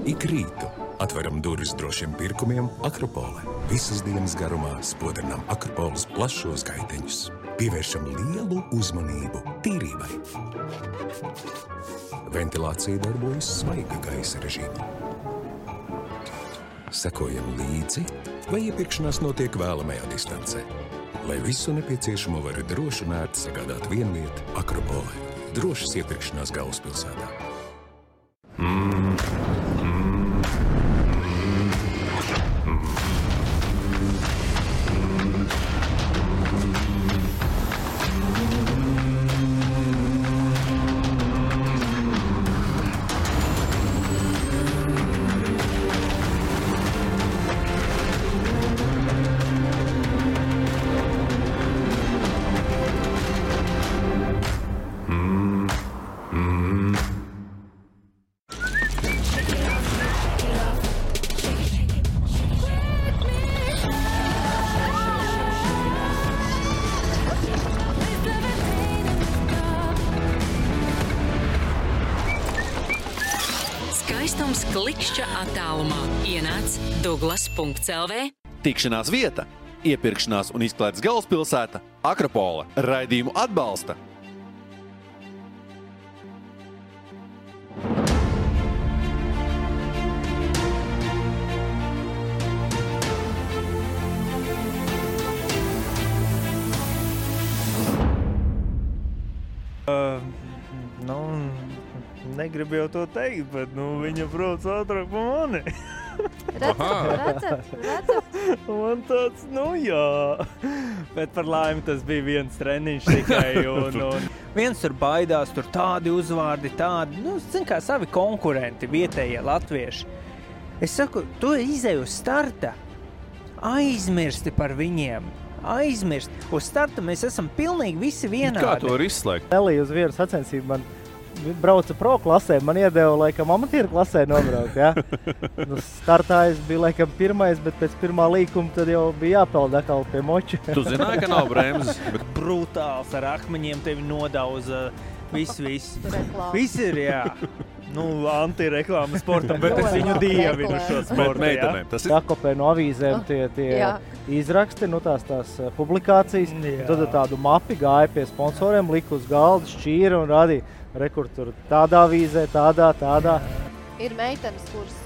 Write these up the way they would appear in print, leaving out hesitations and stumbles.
Ik rītu atveram durvis drošiem pirkumiem Akropole. Visas dienas garumā spodrinām Akropoles plašos gaiteņus. Pievēršam lielu uzmanību tīrībai. Ventilācija darbojas svaiga gaisa režīmā. Sekojam līdzi, vai iepirkšanās notiek vēlamajā distancē. Lai visu nepieciešamo var droši un ērti sagādāt vienvieta Akropolē. Drošas iepirkšanās galvaspilsētā. Skaistums klikšķa attālumā. Ienāc Douglas.lv. Tikšanās vieta, iepirkšanās un izklaides galvaspilsēta Akropole. Raidījumu atbalsta negribu jau to teikt, bet viņa brauc ātrāk pa mani. Redzat? Man tāds, jā. Bet par laimi tas bija viens treniņš tikai. Un viens tur baidās, tur tādi uzvārdi, tādi, zin kā savi konkurenti, vietējie latvieši. Es saku, tu izej uz starta, aizmirsti par viņiem. Aizmirst. Uz starta mēs esam pilnīgi visi vienādi. Kā to var izslēgt? Nelija uz vienu sacensību man brauca pro klasē, man iedeva, laikam, amatieru klasē nobraukt, ja? Startā es biju, laikam, pirmais, bet pēc pirmā līkuma tad jau bija jāpeld atkal pie moča. Tu zināji, ka nav bremzes? Brutāls ar akmeņiem tevi nodauza viss. Viss ir, jā. Antireklāma sportam, bet es viņu dievinu šo sportu, jā. Sakopē no avīzēm tie izraksti, tās publikācijas. Tad tādu mapi gāja pie sponsoriem, lika uz galda, šķīra un radīja. Rekur tur tādā avīzē, tādā. Ir meitenes, kuras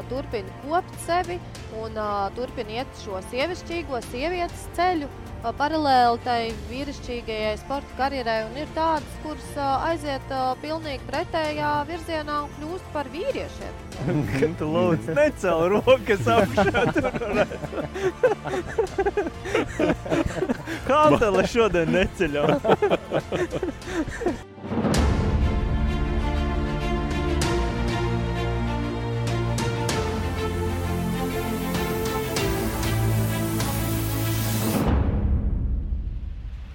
turpina kopt sevi un turpina iet šo sievišķīgo sievietes ceļu paralēli tai vīrišķīgajai sporta karjerai, un ir tādas, kuras aiziet pilnīgi pretējā virzienā un kļūst par vīriešiem. Tu lūdzu, necel rokas augšā tur. Kantele šodien neceļam.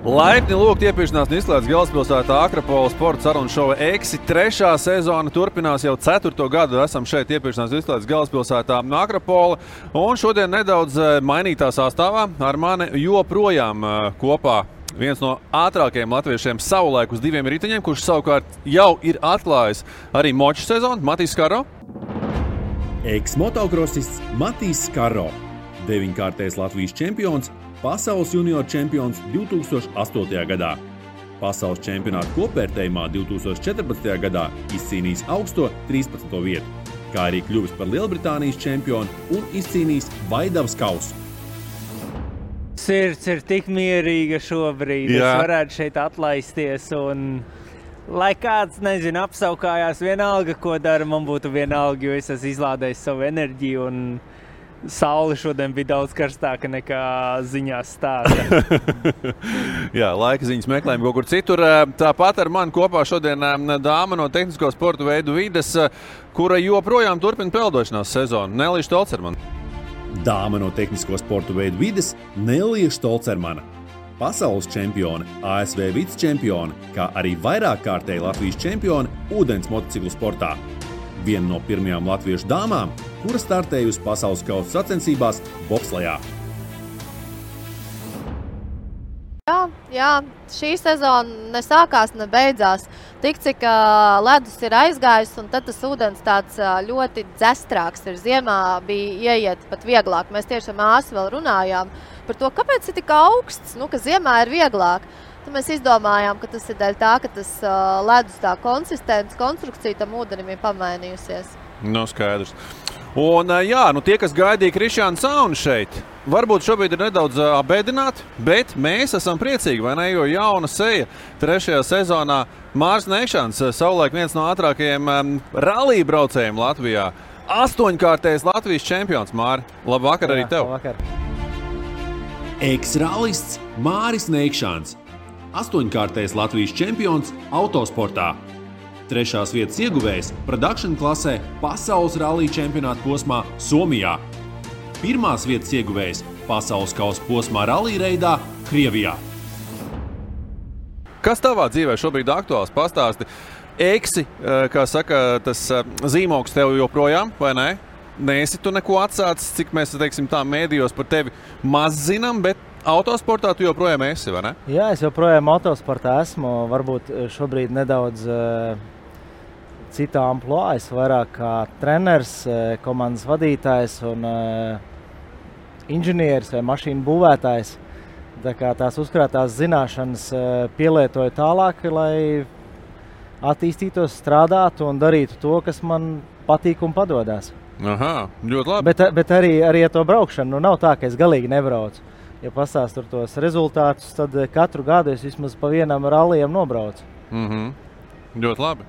Laipni lūgt iepirkšanās un izklaides galvaspilsētā Akropole sporta sarunu šova Eksi. 3. sezona turpinās jau 4. gadu. Esam šeit iepirkšanās un izklaides galvaspilsētā Akropole. Un šodien nedaudz mainītā sastāvā ar mani joprojām kopā viens no ātrākajiem latviešiem savulaik uz 2 riteņiem, kurš savukārt jau ir atklājis arī moču sezonu, Matīs Skaro. Eks-motokrasists Matīs Skaro, 9-kārtais Latvijas čempions, pasaules junior čempions 2008. gadā. Pasaules čempionāta kopvērtējumā 2014. gadā izcīnījis augsto 13. vietu, kā arī kļuvis par Lielbritānijas čempionu un izcīnījis Vaidavas kausu. Sirds ir tik mierīga šobrīd, es varētu šeit atlaisties un, lai kāds, apsaukājās vienalga, ko dara, man būtu vienalga, jo es esmu izlādējis savu enerģiju un saule šodien bija daudz karstāka nekā ziņās stāsta. Jā, laika ziņas meklējam kaut kur citur. Tāpat ar mani kopā šodien dāma no tehnisko sporta veidu vides, kura joprojām turpina peldošanās sezonu. Nelija Štolcermana. Dāma no tehnisko sporta veidu vides Nelija Štolcermana. Pasaules čempione, ASV vicečempione, kā arī vairākkārtēji Latvijas čempione ūdens motociklu sportā. Viena no pirmajām latviešu dāmām, kura startējusi pasaules kausa sacensībās bobslejā. Jā, Jā, šī sezona ne sākās, ne beidzās. Tik cik ledus ir aizgājis, un tad tas ūdens tāds ļoti dzestrāks ir. Ziemā bija ieiet pat vieglāk. Mēs tieši ar māsu vēl runājām par to, kāpēc ir tik augsts, ka ziemā ir vieglāk. Tad mēs izdomājām, ka tas ir dēļ tā, ka tas ledus tā konstrukcija tam ūdenim ir pamainījusies. Skaidrs. Un tie, kas gaidīja Krišjānu Sauni šeit, varbūt šobrīd ir nedaudz abēdināti, bet mēs esam priecīgi, vai ne, jo jauna seja 3. sezonā Māris Neikšāns, savulaik viens no ātrākajiem rallija braucējiem Latvijā. 8-kārtējs Latvijas čempions, Māri. Labvakar arī tev. Labvakar. Eks-rallists Māris Neikšāns. 8-kārtējs Latvijas čempions autosportā. 3. vietas ieguvējs production klasē pasaules rallija čempionāta posmā Somijā. 1. vietas ieguvējs pasaules kausa posmā rallija reidā Krievijā. Kas tavā dzīvē šobrīd aktuāls? Pastāsti. Eksi, kā saka, tas zīmogs tev joprojām, vai ne? Neesi tu neko atsācis, cik mēs, teiksim tā, mēdījos par tevi maz zinām, bet autosportā tu joprojām esi, vai ne? Jā, es joprojām autosportā esmu. Varbūt šobrīd nedaudz citā amplua. Es vairāk kā treneris, komandas vadītājs un inženieris vai mašīnu būvētājs. Tā kā tās uzkrātās zināšanas pielietoju tālāk, lai attīstītos, strādātu un darītu to, kas man patīk un padodas. Aha, ļoti labi. Bet arī ar to braukšanu nav tā, ka es galīgi nebraucu. Ja pastāstu tos rezultātus, tad katru gadu es vismaz pa vienam rallijam nobraucu. Ļoti labi.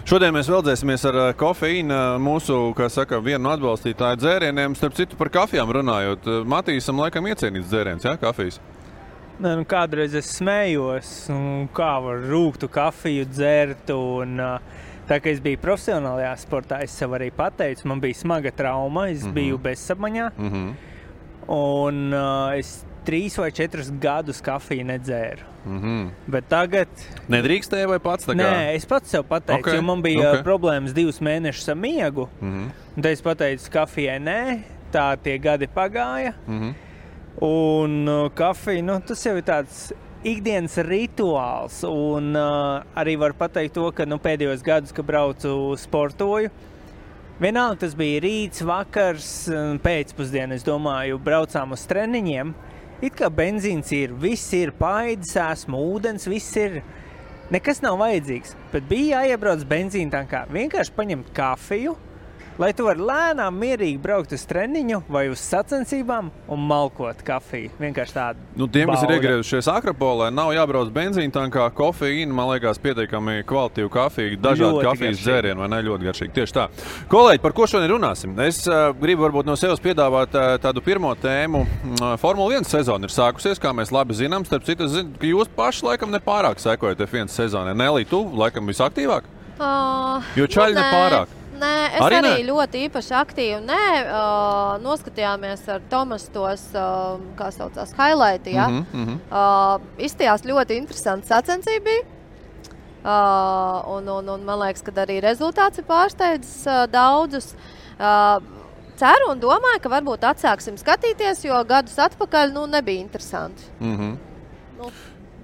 Šodien mēs veldzēsimies ar kofeīnu mūsu, kā saka, vienu no atbalstītāju dzērieniem. Starp citu par kafijām runājot, Matīsam laikam iecienīts dzēriens, jā, kafijas? Nē, kādreiz es smējos, kā var rūgtu kafiju dzert, un tā kā es biju profesionālajā sportā, es sev arī pateicu, man bija smaga trauma, es biju bezsapmaņā, un es 3 vai 4 gadus kafiju nedzēru. Bet tagad... Nedrīkstēja vai pats tā kā? Nē, es pats sev pateicu, jo man bija problēmas 2 mēnešus ar miegu. Un tad es pateicu kafijai nē, tā tie gadi pagāja. Un kafija, tas jau ir tāds ikdienas rituāls. Un arī var pateikt to, ka pēdējos gadus, kad braucu sportoju, vienalga tas bija rīts, vakars, pēcpusdiena, es domāju, braucām uz treniņiem. It kā benzīns ir, viss ir, paēdis esmu, ūdens, viss ir, nekas nav vajadzīgs. Bet bija jāiebrauc benzīna tankā, vienkārši paņemt kafiju, lai tu vari lēnām, mierīgi braukt uz treniņu vai uz sacensībām un malkot kafiju. Vienkārši tādu tiem, kas ir iegriezušies Akropolē, nav jābrauc benzīna tankā, kofeīna, man liekas, pietiekami kvalitīvu kafiju, dažādi kafijas dzērieni, vai ne, ļoti garšīgi. Tieši tā. Kolēģi, par ko šodien runāsim? Es gribu varbūt no sevis piedāvāt tādu pirmo tēmu. Formula 1 sezona ir sākusies, kā mēs labi zinām. Starp citu, es zinu, ka jūs paši laikam nepārāk sekojat F1 sezonai. Nelī, tu laikam visaktīvāk? Jo čaļi nepārāk. Nē, es arī ļoti īpaši aktīvi noskatījāmies ar Tomas tos, kā saucās, highlighti, ja? Izstījās ļoti interesanti sacensība. Un man liekas, ka arī rezultāts ir pārsteidzis daudzus. Ceru un domāju, ka varbūt atsāksim skatīties, jo gadus atpakaļ nebija interesanti.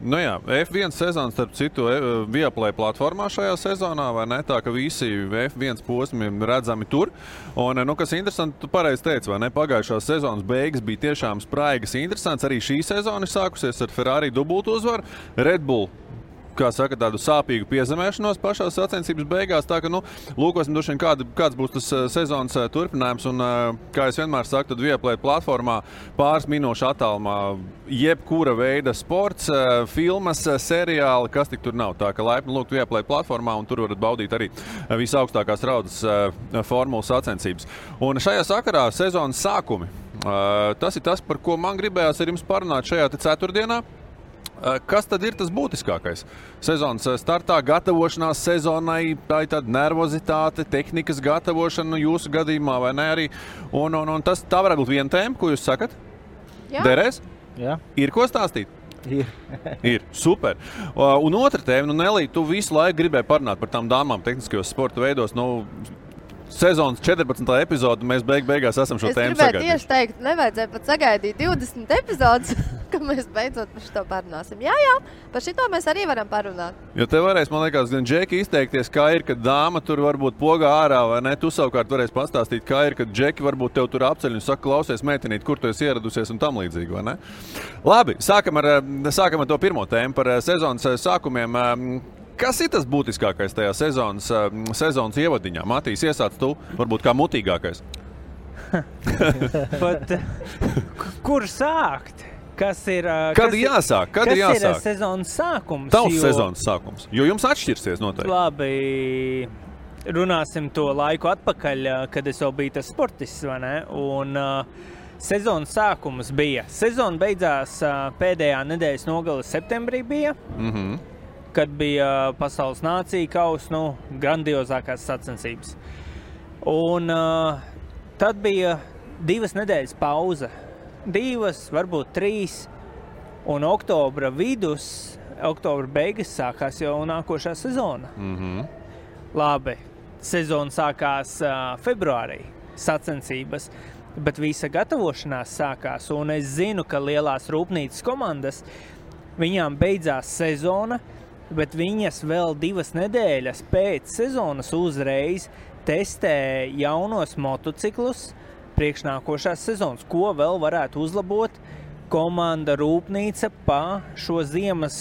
Jā, F1 sezona, starp citu, Viaplay platformā šajā sezonā, vai ne? Tā, ka visi F1 posmi redzami tur. Un, kas interesanti, tu pareizi teici, vai ne? Pagājušās sezonas beigas bija tiešām spraigas interesants. Arī šī sezona ir sākusies ar Ferrari dubultu uzvaru. Red Bull, kā saka, tādu sāpīgu piezemēšanos pašās sacensības beigās. Tā, ka, lūkosim droši vien, kāds būs tas sezonas turpinājums. Un, kā es vienmēr saku, tad Viaplay platformā pāris minūšu attālumā jebkura veida sports, filmas, seriāli, kas tik tur nav. Tā, ka laipni lūgt Viaplay platformā, un tur varat baudīt arī visaugstākās raudas formulas sacensības. Un šajā sakarā sezonas sākumi. Tas ir tas, par ko man gribējās ar jums parunāt šajā ceturtdienā. Kas tad ir tas būtiskākais? Sezonas startā, gatavošanās sezonai, tā ir tāda nervozitāte, tehnikas gatavošana jūsu gadījumā, vai ne arī? Un tā varētu būt viena tēma, ko jūs sakat? Jā. Derēs? Jā. Ir ko stāstīt? Ir. Super. Un otra tēma, Nelī, tu visu laiku gribēji parunāt par tām dāmām tehniskajos sporta veidos, sezonas 14. epizode, mēs beigās esam šo tēmu sagaidījuši. Es gribēju tieši teikt, nevajadzēja pat sagaidīt 20 epizodes. ka mēs beidzot par šito parunāsim. Jā, par šito mēs arī varam parunāt. Jo te varēs, man liekas, gan Džeki izteikties, kā ir, kad dāma tur varbūt pogā ārā, vai ne? Tu savukārt varēs pastāstīt, kā ir, kad Džeki varbūt tev tur apceļ un saka, klausies, meitenīt, kur tu esi ieradusies un tam līdzīgi, vai ne? Labi, sākam ar to pirmo tēmu par sezonas sākumiem. Kas ir tas būtiskākais tajā sezonas ievadiņā? Matīs, iesāc tu, varbūt kā mutīgākais. Bet, kur sākt? Kad ir jāsāk? Kas ir sezonas sākums? Tavs sezonas sākums, jo jums atšķirsies noteikti. Labi, runāsim to laiku atpakaļ, kad es vēl biju tas sportists, vai ne? Un sezonas sākums bija. Sezona beidzās pēdējā nedēļas nogale septembrī bija, kad bija pasaules nācija kausa, grandiozākās sacensības. Un tad bija 2 nedēļas pauze. 2, varbūt 3, un oktobra beigas sākās jau nākošā sezona. Labi, sezona sākās februārī, sacensības, bet visa gatavošanās sākās, un es zinu, ka lielās rūpnīcas komandas, viņām beidzās sezona, bet viņas vēl 2 nedēļas pēc sezonas uzreiz testē jaunos motociklus, priekšnākošās sezonas, ko vēl varētu uzlabot komanda rūpnīca pa šo ziemas,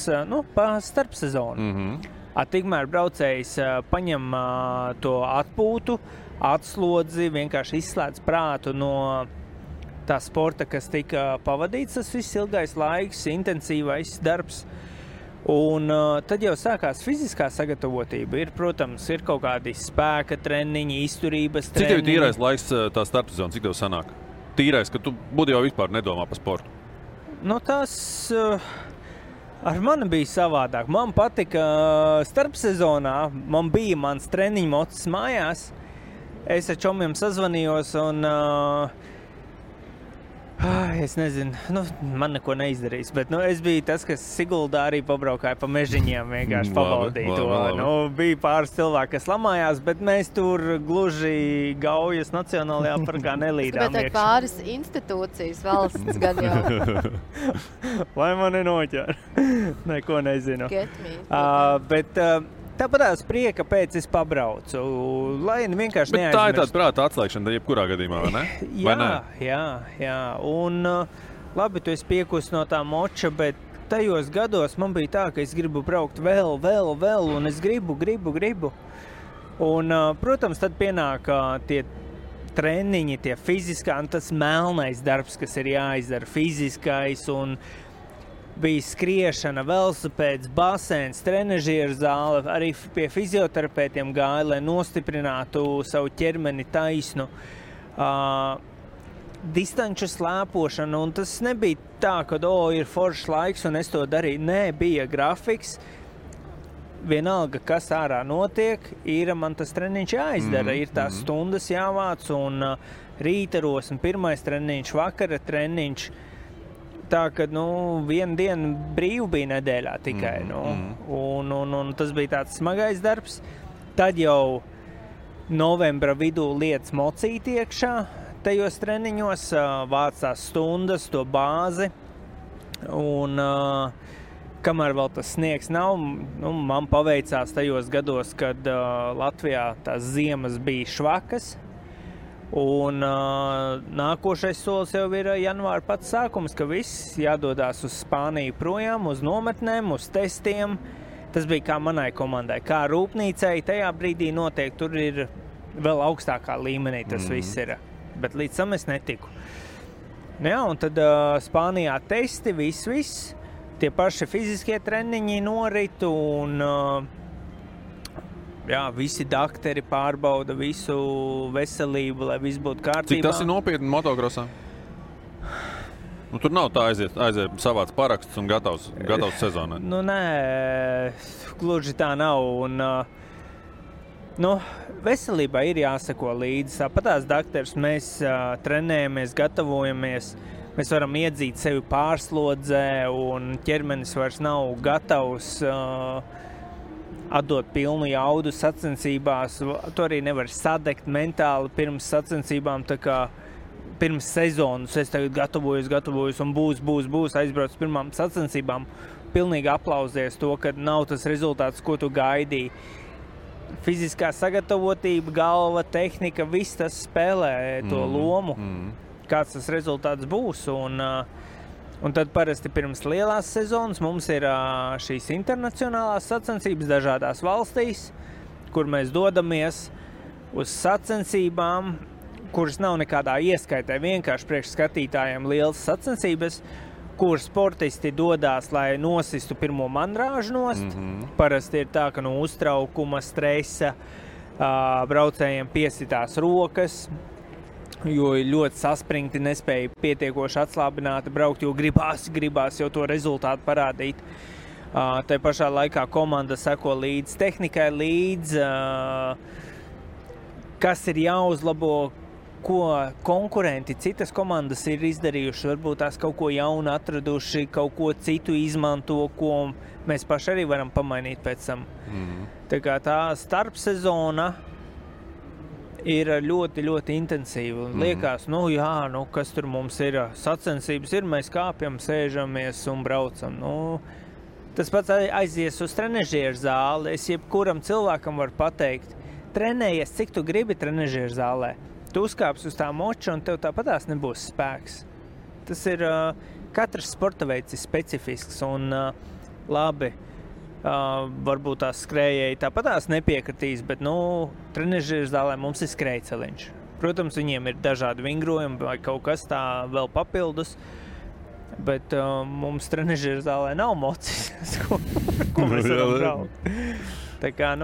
pa starpsezonu. Tikmēr braucējs paņem to atpūtu, atslodzi, vienkārši izslēdz prātu no tā sporta, kas tika pavadīts, tas viss ilgais laiks, intensīvais darbs. Un tad jau sākās fiziskā sagatavotība. Protams, ir kaut kādi spēka treniņi, izturības treniņi. Cik tev ir tīrais laiks tā starpsezona, cik tev sanāk? Tīrais, ka tu būtu jau vispār nedomā par sportu. Tas ar mani bija savādāk. Man patika starpsezonā, man bija mans treniņu mocis mājās. Es ar čomiem sazvanījos un es nezinu, man neko neizdarīs, bet es biju tas, kas Siguldā arī pabraukāja pa mežiņiem, vienkārši pabaudīja to. Bija pāris cilvēki, kas lamājās, bet mēs tur gluži Gaujas Nacionālajā parkā nelīdām. Bet pāris institūcijas valsts gan jau. Lai man nenoķer. Neko nezinu. Get me. Tāpatās prieka pēc es pabraucu, lai vienkārši neaizmirst. Bet tā ir tāda prāta atslēgšana jebkurā gadījumā, vai ne? Jā. Un labi, tu esi piekusi no tā moča, bet tajos gados man bija tā, ka es gribu braukt vēl, un es gribu. Un, protams, tad pienāk tie treniņi, tie fiziskā, un tas melnais darbs, kas ir jāizdara, fiziskais, un bija skriešana, velosipēds, basēns, trenažieru zāle, arī pie fizioterapeitiem gāja, lai nostiprinātu savu ķermeni taisnu. Distanču slēpošana, un tas nebija tā, ka ir foršs laiks, un es to darīju. Nē, bija grafiks. Vienalga, kas ārā notiek, man tas treniņš jāizdara. Ir tās stundas jāvāc, un rītaros, un pirmais treniņš, vakara treniņš. Tā, ka, viena diena brīvu bija nedēļā tikai, un tas bija tāds smagais darbs. Tad jau novembra vidū lietas mocīt iekšā tajos treniņos, vācās stundas, to bāzi, un kamēr vēl tas sniegs nav, man paveicās tajos gados, kad Latvijā tās ziemas bija švakas. Un nākošais solis jau ir janvāra pats sākums, ka viss jādodās uz Spāniju projām, uz nometnēm, uz testiem. Tas bija kā manai komandai, kā rūpnīcai. Tajā brīdī noteikti tur ir vēl augstākā līmenī tas viss ir, bet līdz tam es netiku. Jā, un tad Spānijā testi, viss. Tie paši fiziskie treniņi norit un visi dakteri pārbauda visu veselību, lai viss būtu kārtībā. Cik tas ir nopietni motokrosā? Tur nav tā aiziet savāds paraksts un gatavs sezonai. Nē, gluži tā nav. Un, veselībai ir jāsako līdzi. Tāpatās dakteris, mēs trenējamies, gatavojamies. Mēs varam iedzīt sevi pārslodzē un ķermenis vairs nav gatavs atdot pilnu jaudu sacensībās. Tu arī nevar sadegt mentāli pirms sacensībām, tā kā pirms sezonas es tagad gatavojos un būs aizbrauc pirmām sacensībām. Pilnīgi aplausies to, ka nav tas rezultāts, ko tu gaidīji. Fiziskā sagatavotība, galva, tehnika, viss tas spēlē to lomu, kāds tas rezultāts būs. Un tad parasti pirms lielās sezonas mums ir šīs internacionālās sacensības dažādās valstīs, kur mēs dodamies uz sacensībām, kuras nav nekādā ieskaitē, vienkārši priekš skatītājiem lielas sacensības, kur sportisti dodās, lai nosistu pirmo mandrāžu nost. Parasti ir tā, ka no uztraukuma, stresa braucējiem piesitās rokas, jo ir ļoti saspringti, nespēja pietiekoši atslābināti braukt, jo gribās jau to rezultātu parādīt. Tai pašā laikā komanda seko līdz tehnikai, kas ir jāuzlabo, ko konkurenti, citas komandas ir izdarījuši, varbūt tās kaut ko jaunu atraduši, kaut ko citu izmanto, ko mēs paši arī varam pamainīt pēc tam. Tā kā tā starpsezona ir ļoti, ļoti intensīva. Liekas, kas tur mums ir, sacensības ir, mēs kāpjam, sēžamies un braucam. Tas pats aizies uz trenežieru zāli. Es jebkuram cilvēkam varu pateikt, trenējies, cik tu gribi trenežieru zālē. Tu uzkāpsi uz tā moča un tev tāpatās nebūs spēks. Tas ir, katrs sporta veids ir specifisks un labi, varbūt tās skrējēji tāpatās nepiekritīs, bet, trenežieru zālē mums ir skrējceliņš. Protams, viņiem ir dažādi vingrojumi vai kaut kas tā vēl papildus, bet mums trenežieru zālē nav mocis, ko mēs varam braukt. Tā kā,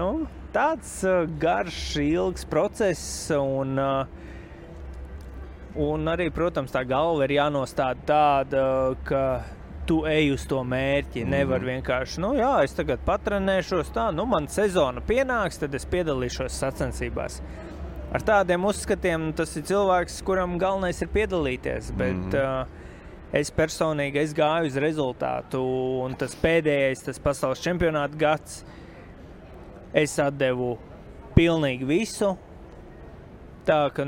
tāds garš, ilgs process un arī, protams, tā galva ir jānostāda tāda, ka tu ej uz to mērķi. Nevar vienkārši, es tagad patrenēšos man sezona pienāks, tad es piedalīšos sacensībās. Ar tādiem uzskatiem tas ir cilvēks, kuram galvenais ir piedalīties, bet es personīgi gāju uz rezultātu un tas pēdējais, tas pasaules čempionāta gads, es atdevu pilnīgi visu, tā ka,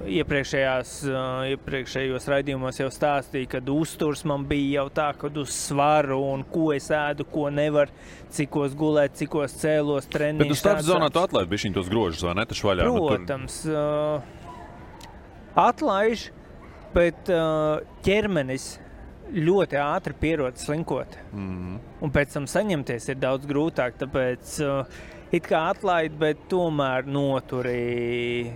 iepriekšējos raidījumos jau stāstīju, kad uzturs man bija jau tā, kad uz svaru un ko es ēdu, ko nevar, cikos gulēt, cikos cēlos, treniņš. Bet uz starpsezonā tu atlaid bišķiņ tos grožus, vai ne, taču vaļā? Protams, atlaiž, bet ķermenis ļoti ātri pierod slinkot. Un pēc tam saņemties ir daudz grūtāk, tāpēc it kā atlaid, bet tomēr noturi,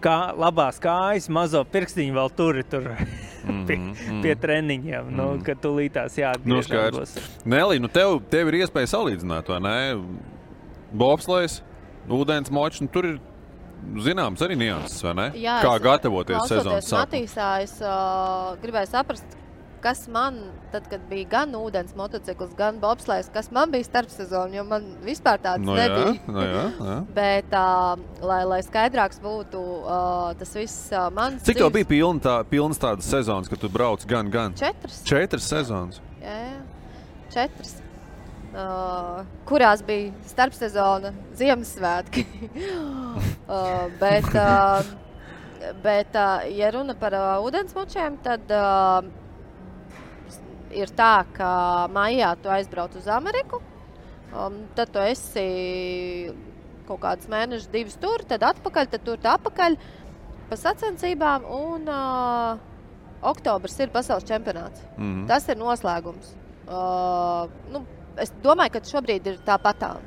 labās kājas, mazo pirkstiņu vēl turi tur pie treniņiem, kad tūlītās jāatgriežas. Nelī, tev ir iespēja salīdzināt, vai ne? Bobslejs, ūdens močs, tur ir zināms arī nianses, vai ne? Jā, kā gatavoties sezonas sākumā? Matīsā es gribēju saprast, kas man, tad, kad bija gan ūdens motocikls, gan bobslejs, kas man bija starpsezona, jo man vispār tāds nebija. Jā. Bet, lai skaidrāks būtu tas viss mans Cik tev bija pilnas tādas sezonas, kad tu brauc gan? 4. 4 sezonas? Jā, 4. Kurās bija starpsezona Ziemassvētki. Bet, ja runa par ūdensmočiem, tad ir tā, ka maijā tu aizbrauc uz Ameriku, tad tu esi kaut kādus mēnešus, 2 tur, tad atpakaļ, tad tur atpakaļ pa sacensībām, un oktobrs ir pasaules čempionāts. Tas ir noslēgums. Es domāju, ka šobrīd ir tāpatām.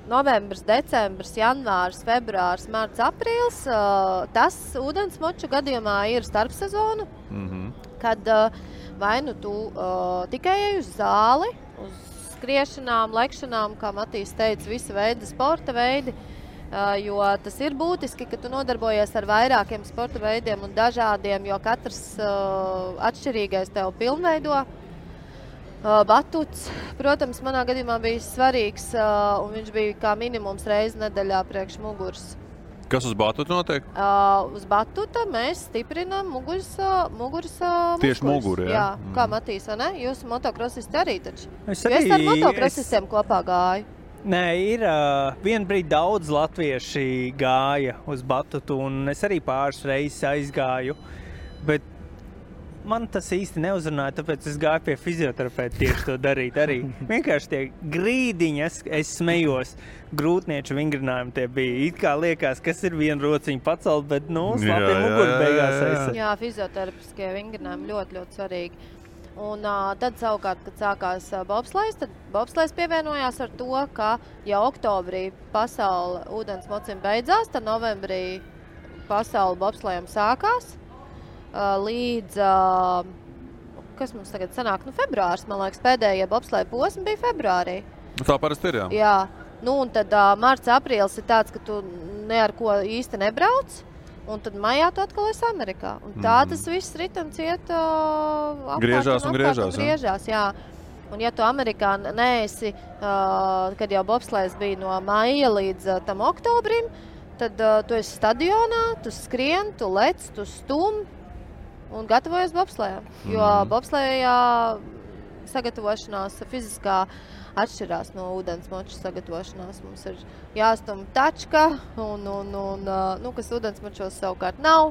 Novembris, decembris, janvārs, februārs, marts, aprīls. Tas ūdensmoču gadījumā ir starpsezona, kad vai nu tu tikai ej uz zāli, uz skriešanām, lekšanām, kā Matīs teica, visa veida sporta veidi, jo tas ir būtiski, ka tu nodarbojies ar vairākiem sporta veidiem un dažādiem, jo katrs atšķirīgais tev pilnveido. Batuts, protams, manā gadījumā bija svarīgs, un viņš bija kā minimums reizi nedēļā priekš muguras. Kas uz batuta notiek? Uz batuta mēs stiprinām muguras Tieši muguru, jā? Jā, kā Matīs, vai ne? Jūs motokrosisti arī taču. Es ar motokrosistiem kopā gāju. Nē, ir vien brīdi daudz latvieši gāja uz batutu, un es arī pāris reizes aizgāju, bet man tas īsti neuzrunāja, tāpēc es gāju pie fizioterapeita tieši to darīt arī. Vienkārši tie grīdiņi, es smejos, grūtnieču vingrinājumi tie bija. It kā liekas, kas ir viena rociņa pacelt, bet, slapie muguri beigās aizsat. Jā, fizioterapiskie vingrinājumi ļoti, ļoti svarīgi. Un tad savukārt, kad sākās bobslejs, tad bobslejs pievienojās ar to, ka jau oktobrī pasaule ūdens mocim beidzās, tad novembrī pasaule bobslejam sākās. Līdz, kas mums tagad sanāk, februārs, man liekas, pēdējie bobsleja posmi bija februārī. Tā parasti ir, jā. Jā, un tad marts, aprīlis ir tāds, ka tu ne ar ko īsti nebrauc, un tad maijā tu atkal esi Amerikā. Un tā tas viss ritams iet griežās un griežās, jā. Un ja tu Amerikā neesi, kad jau bobslejs bija no maija līdz tam oktobrim, tad tu esi stadionā, tu skrien, tu lec, tu stum, un gatavojas bobslejā, jo bobslejā sagatavošanās fiziskā atšķirās no ūdensmoču sagatavošanās. Mums ir jāstum tačka, kas ūdensmočos savukārt nav.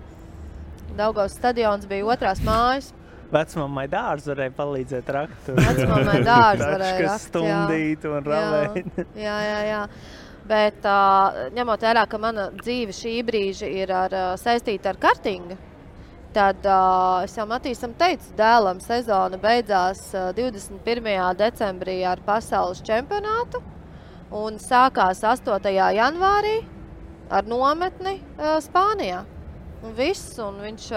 Daugavas stadions bija otrās mājas. Vecmammai dārzu varēja palīdzēt rakt. Vecmammai dārzu varēja rakt, stundīt un ravēt. Jā. Bet ņemot vērā, ka mana dzīve šī brīža ir saistīta ar kartingu, tad es jau Matīsam teicu, dēlam sezona beidzās 21. decembrī ar pasaules čempionātu un sākās 8. janvārī ar nometni Spānijā. Un viss, un viņš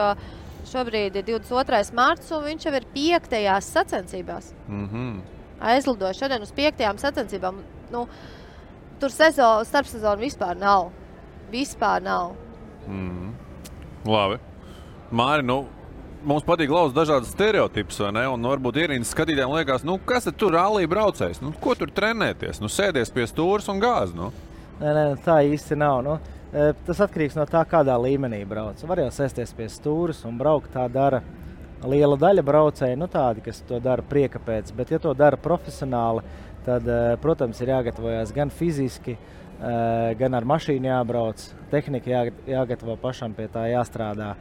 šobrīd ir 22. marts, un viņš jau ir 5. sacensībās. Aizlidoja šodien uz 5. sacensībām. Tur starpsezona vispār nav. Labi. Māri, mums patīk lauzt dažādas stereotipus, vai ne? Un varbūt ierīnas skatītājiem liekas, kas tad tur rallija braucējs? Ko tur trenēties? Sēdies pie stūras un gāz, Nē, tā īsti nav, Tas atkarīgs no tā, kādā līmenī brauc. Var jau sēsties pie stūras un braukt, tā dara liela daļa braucēji, tādi, kas to dara prieka pēc. Bet, ja to dara profesionāli, tad, protams, ir jāgatavojās gan fiziski, gan ar mašīnu jābrauc, tehnika jāgatavo pašam, pie tā jāstrādā.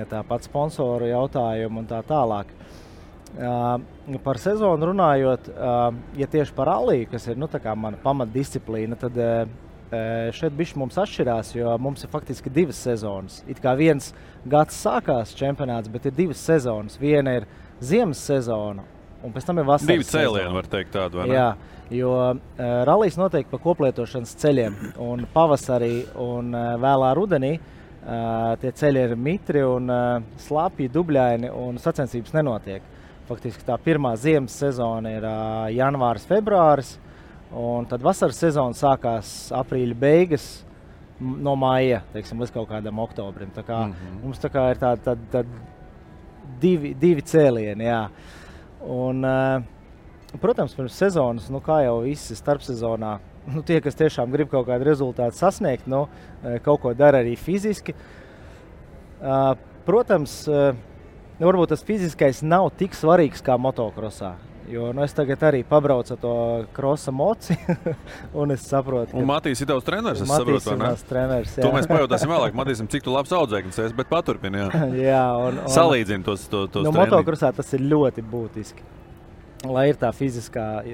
Tāpat sponsoru jautājumu un tā tālāk. Par sezonu runājot, ja tieši par ralliju, kas ir tā kā mana pamatdisciplīna, tad šeit bišķi mums atšķirās, jo mums ir faktiski 2 sezonas. It kā viens gads sākās čempionāts, bet ir 2 sezonas. Viena ir ziemas sezona, un pēc tam ir vasaras 2 cēlieni, var teikt tādu, vai ne? Jā, jo rallijs notiek pa koplietošanas ceļiem, un pavasarī un vēlā rudenī tie ceļi ir mitri un slapji, dubļaini, un sacensības nenotiek. Faktiski tā pirmā ziemas sezona ir janvāris, februāris, un tad vasaras sezona sākās aprīļa beigas no maija, līdz kaut kādam oktobrim. Tā kā mums tā kā ir tādi divi cēlieni, jā. Un, protams, pirms sezonas, kā jau visi starpsezonā, tie, kas tiešām grib kaut kādu rezultātu sasniegt, kaut ko dara arī fiziski. Protams, varbūt tas fiziskais nav tik svarīgs kā motokrosā, jo es tagad arī pabraucu to krosa moci, un es saprotu, ka... Un Matīs ir tavs treneris, es saprotu, vai ne? Matīs ir treneris, jā. To mēs pajautāsim vēlāk. Matīsim, cik tu labs audzēknis esi, bet paturpini, jā. Jā, salīdzini tos treniņus. Motokrosā tas ir ļoti būtiski. Lai ir tā fiziskā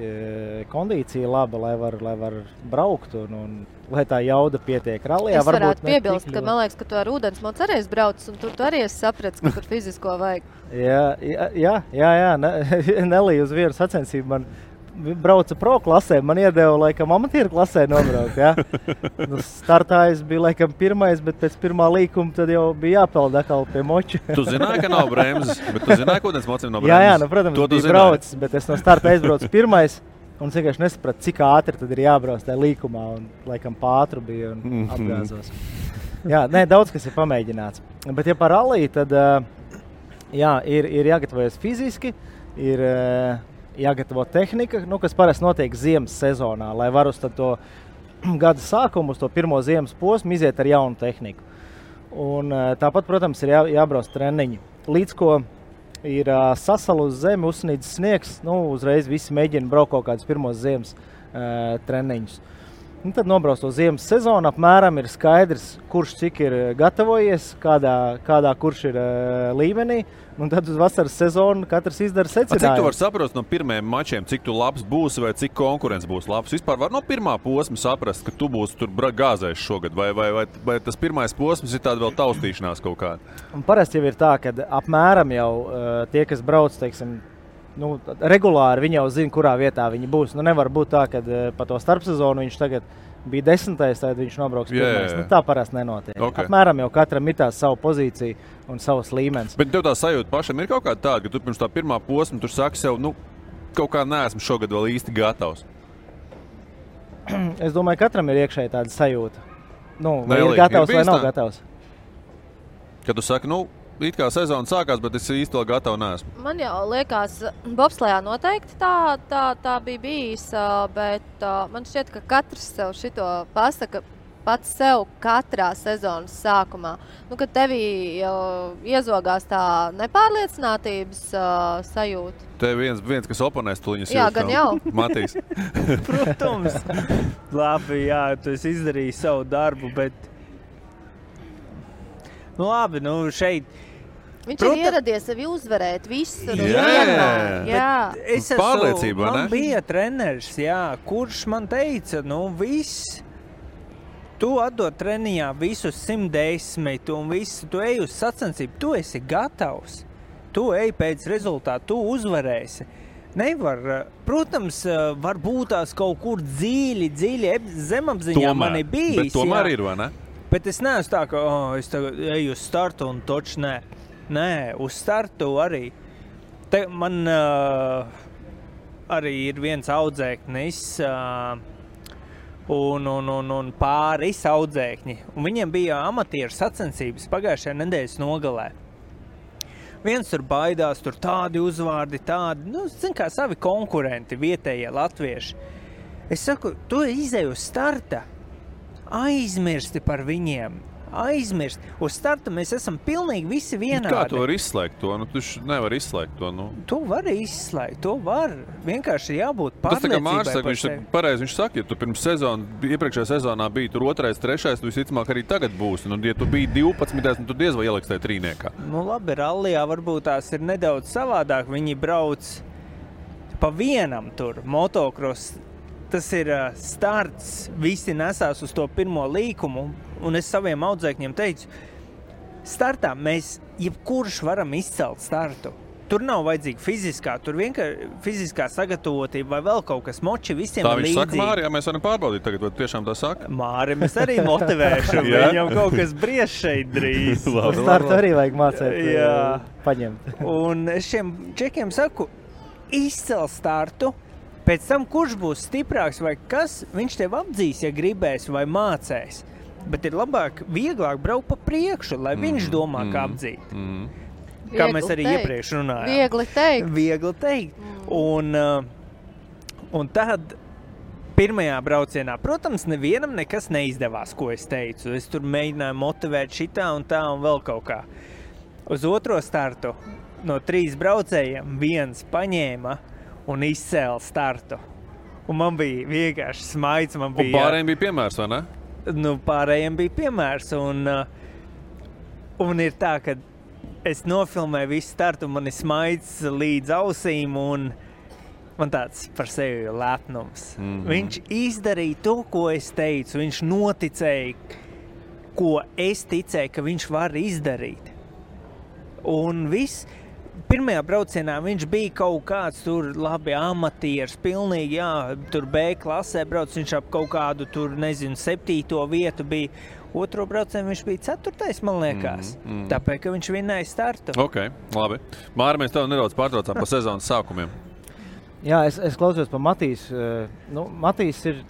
kondīcija laba, lai var braukt un lai tā jauda pietiek rallijā. Es varētu piebilst, ka man liekas, ka tu ar ūdensmocu arī esi braucis, un tu arī esi sapratis, ka tur fizisko vajag. Jā. Nelī uz vienu sacensību man brauca pro klasē, man iedeva laikam amatieru klasē nobraukt, jā. Startājs bija laikam pirmais, bet pēc pirmā līkuma tad jau bija jāpeld atkal pie moču. Tu zināji, ka nav bremzes, bet tu zināji, ka ūdensmocim nav bremzes? Jā, protams, bija braucis, bet es no starta aizbraucu pirmais, un es vienkārši nesapratu, cik ātri tad ir jābrauc tajā līkumā, un laikam pātru bija un apgāzos. Jā, daudz kas ir pamēģināts. Bet ja par ralliju, tad ir jāgatavojas fiziski, ir jāgatavo tehnika, kas parasti notiek ziemas sezonā, lai var uz to gada sākumu, uz to pirmo ziemas posmu iziet ar jaunu tehniku. Un tāpat, protams, ir jābrauc treniņi. Līdz ko ir sasala uz zemi, uzsnīdz sniegs, uzreiz visi mēģina braukt kaut kādus pirmos ziemas treniņus. Un tad nobrauc to ziemas sezonu, apmēram ir skaidrs, kurš cik ir gatavojies, kādā kurš ir līmenī. Un tad uz vasaras sezonu katrs izdara secinājumu. Cik tu vari saprast no pirmajiem mačiem, cik tu labs būsi vai cik konkurence būs labs? Vispār var no pirmā posma saprast, ka tu būsi tur gāzējis šogad, vai tas pirmais posms ir tāda vēl taustīšanās kaut kāda? Un parasti jau ir tā, ka apmēram jau tie, kas brauc, teiksim, regulāri viņi jau zina, kurā vietā viņi būs. Nevar būt tā, ka pa to starpsezonu viņš tagad bija 10. tad viņš nobrauks 1. Tā parasti nenotiek. Okay. Apmēram jau katram ir tā savu pozīciju un savs līmenis. Bet tev tā sajūta pašam ir kaut kāda tāda, ka tu pirms tā pirmā posma tur saki sev, kaut kā neesmu šogad vēl īsti gatavs? Es domāju, katram ir iekšēji tāda sajūta. Vai ir gatavs vai nav gatavs. Kad tu saki, it kā sezona sākās, bet es īsti vēl gatavu neesmu. Man jau liekas, bobslejā noteikti tā bija bijis, bet man šķiet, ka katrs sev šito pasaka pats sev katrā sezonas sākumā. Kad tevī iezogās tā nepārliecinātības sajūta. Te viens kas oponēs tuliņas jā, gan jau. Matīs. Protams. Labi, jā, tu esi izdarījis savu darbu, bet labi, šeit viņš ir ieradies sevi uzvarēt visur. Jā. Pārliecība, ne? Man bija treneris, kurš man teica, viss, tu atdod treniņā visus 110 un visu, tu ej uz sacensību, tu esi gatavs, tu ej pēc rezultātu, tu uzvarēsi. Nevar, protams, var būt tās kaut kur dziļi zemapziņā mani bijis. Bet tomēr ir, vai ne? Bet es neesmu tā, ka es tagad eju uz startu un toču nē. Nē, uz startu arī. Man arī ir viens audzēknis un pāris audzēkņi. Un viņiem bija amatieru sacensības pagājušajā nedēļas nogalē. Viens tur baidās, tur tādi uzvārdi, tādi, zin kā savi konkurenti, vietējie latvieši. Es saku, tu izej uz starta, aizmirsti par viņiem. Aizmirst. Uz starta mēs esam pilnīgi visi vienādi. Kā tu vari izslēgt to? Tu nevar izslēgt to. Tu vari izslēgt, to var. Vienkārši jābūt pārliecībai. Tas tā kā Mārs saka, viņš saka, ja tu pirms iepriekšējā sezonā biji tur 2., 3., tu visticamāk arī tagad būsi. Ja tu biji 12, tu diez vai ieliks tajā trīniekā. Labi, rallijā varbūt tās ir nedaudz savādāk. Viņi brauc pa vienam tur, motocross. Tas ir starts, visi nesās uz to pirmo līkumu, un es saviem audzēkņiem teicu, startā mēs jebkurš varam izcelt startu. Tur nav vajadzīga fiziskā, tur vienkārši fiziskā sagatavotība vai vēl kaut kas moči visiem tā līdzīgi. Tā viņš saka, Māri, mēs varam pārbaudīt tagad, vai tiešām tā saka? Māri, mēs arī motivēšu, viņam kaut kas bries šeit drīz. Uz startu arī vajag mācēt, paņemt. Un es šiem čekiem saku, izcel startu, pēc tam, kurš būs stiprāks vai kas, viņš tev apdzīs, ja gribēs vai mācēs. Bet ir vieglāk braukt pa priekšu, lai viņš domā, kā apdzīt. Kā mēs arī iepriekš runājām. Viegli teikt. Un tad pirmajā braucienā, protams, nevienam nekas neizdevās, ko es teicu. Es tur mēģināju motivēt šitā un tā un vēl kaut kā. Uz otro startu no 3 braucējiem viens paņēma un izcēla startu. Un man bija vienkārši smaids. Un pārējiem bija piemērs, vai ne? Pārējiem bija piemērs. Un ir tā, ka es nofilmēju visu startu, un man ir smaids līdz ausīm, un man tāds par sevi lepnums. Viņš izdarīja to, ko es teicu. Viņš noticēja, ko es ticēju, ka viņš var izdarīt. Un viss. Pirmajā braucienā viņš bija kaut kāds tur labi amatieris, pilnīgi, tur B klasē brauc, viņš ap kaut kādu tur, 7. vietu bija. Otro braucienu viņš bija 4. man liekas, tāpēc, ka viņš vinnēja startu. Ok, labi. Māri, mēs tev nedaudz pārtraucām pa sezonas sākumiem. Jā, es klausījos pa Matīsu. Matīs ir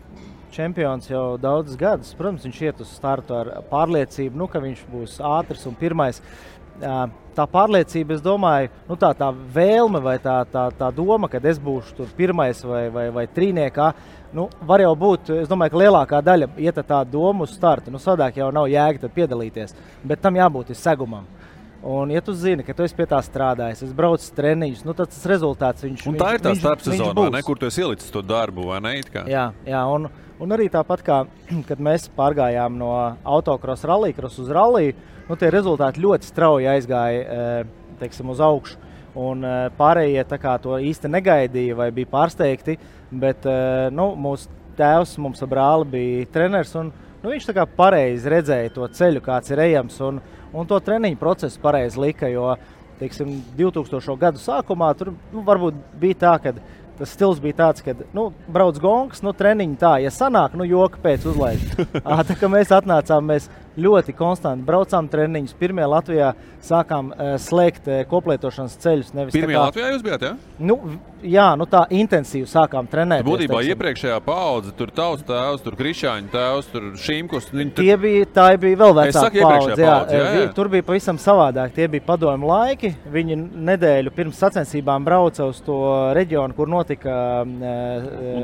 čempions jau daudzus gadus. Protams, viņš iet uz startu ar pārliecību, ka viņš būs ātrs un pirmais. Tā pārliecība, es domāju, tā vēlme vai tā doma, kad es būšu tur pirmais vai trīniekā, var jau būt, es domāju, ka lielākā daļa iet tā doma uz startu. Sadāk jau nav jēga tad piedalīties, bet tam jābūt segumam. Un, ja tu zini, ka tu esi pie tā strādājis, es braucu treniņus, nu tad tas rezultāts viņš būs. Un tā ir tā starpsezonā, ne, kur tu esi ielicis to darbu, vai ne? Jā, un arī tāpat kā, kad mēs pārgājām no autokrosa rallycross uz ralliju, nu tie rezultāti ļoti strauji aizgāja, teiksim, uz augšu. Un pārējie tā kā to īsti negaidīja vai bija pārsteigti, bet nu, mūsu tēvs mums ar brāli bija treneris un nu, viņš tā kā pareizi redzēja to ceļu, kāds ir ejams un to treniņu procesu pareizi lika, jo, teiksim, 2000. Gadu sākumā tur nu, varbūt bija tā, ka tas stils bija tāds, ka nu, brauc gongs, nu, treniņi tā, ja sanāk, nu, joka pēc uzlaiž. Tā kā mēs atnācām, mēs ļoti konstanti braucām treniņus. Pirmie Latvijā sākām slēgt koplietošanas ceļus. Pirmie Latvijā jūs bijāt, jā? Nu, jā, nu tā intensīvi sākām trenēt. Būtībā iepriekšējā paudze, tur tavs tēvs, tur Krišāņa tēvs, tur Šīmkus. Tā bija vēl vecāka paudze. Jā. Tur bija pavisam savādāk. Tie bija padomju laiki. Viņi nedēļu pirms sacensībām brauca uz to reģionu, kur notika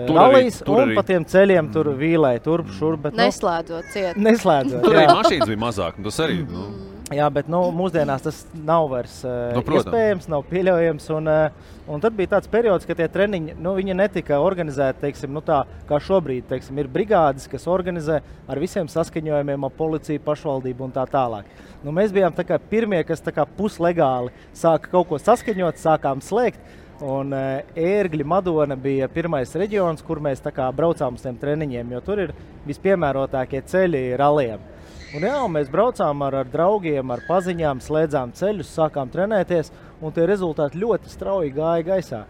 rallijas, un pa tiem ceļiem tur vīlēja turp, šurp. Neslēdzot ciet. Neslēdzot, tur arī mašīnas bija mazāk, tas arī, nu. Jā, bet nu, mūsdienās tas nav vairs iespējams, nav pieļaujams. Un tad bija tāds periods, ka tie treniņi, nu, viņi netika organizēti, teiksim, nu tā, kā šobrīd, teiksim, ir brigādes, kas organizē ar visiem saskaņojumiem, ar policiju, pašvaldību un tā tālāk. Nu, mēs bijām tā kā pirmie, kas tā kā puslegāli sāka kaut ko saskaņot, sākām slēgt. Un Ērgļi, Madona bija pirmais reģions, kur mēs tā kā braucām uz tiem treniņiem, jo tur ir vispiemērotākie ceļi rallijiem. Un jā, mēs braucām ar draugiem, ar paziņām, slēdzām ceļus, sākām trenēties, un tie rezultāti ļoti strauji gāja gaisā.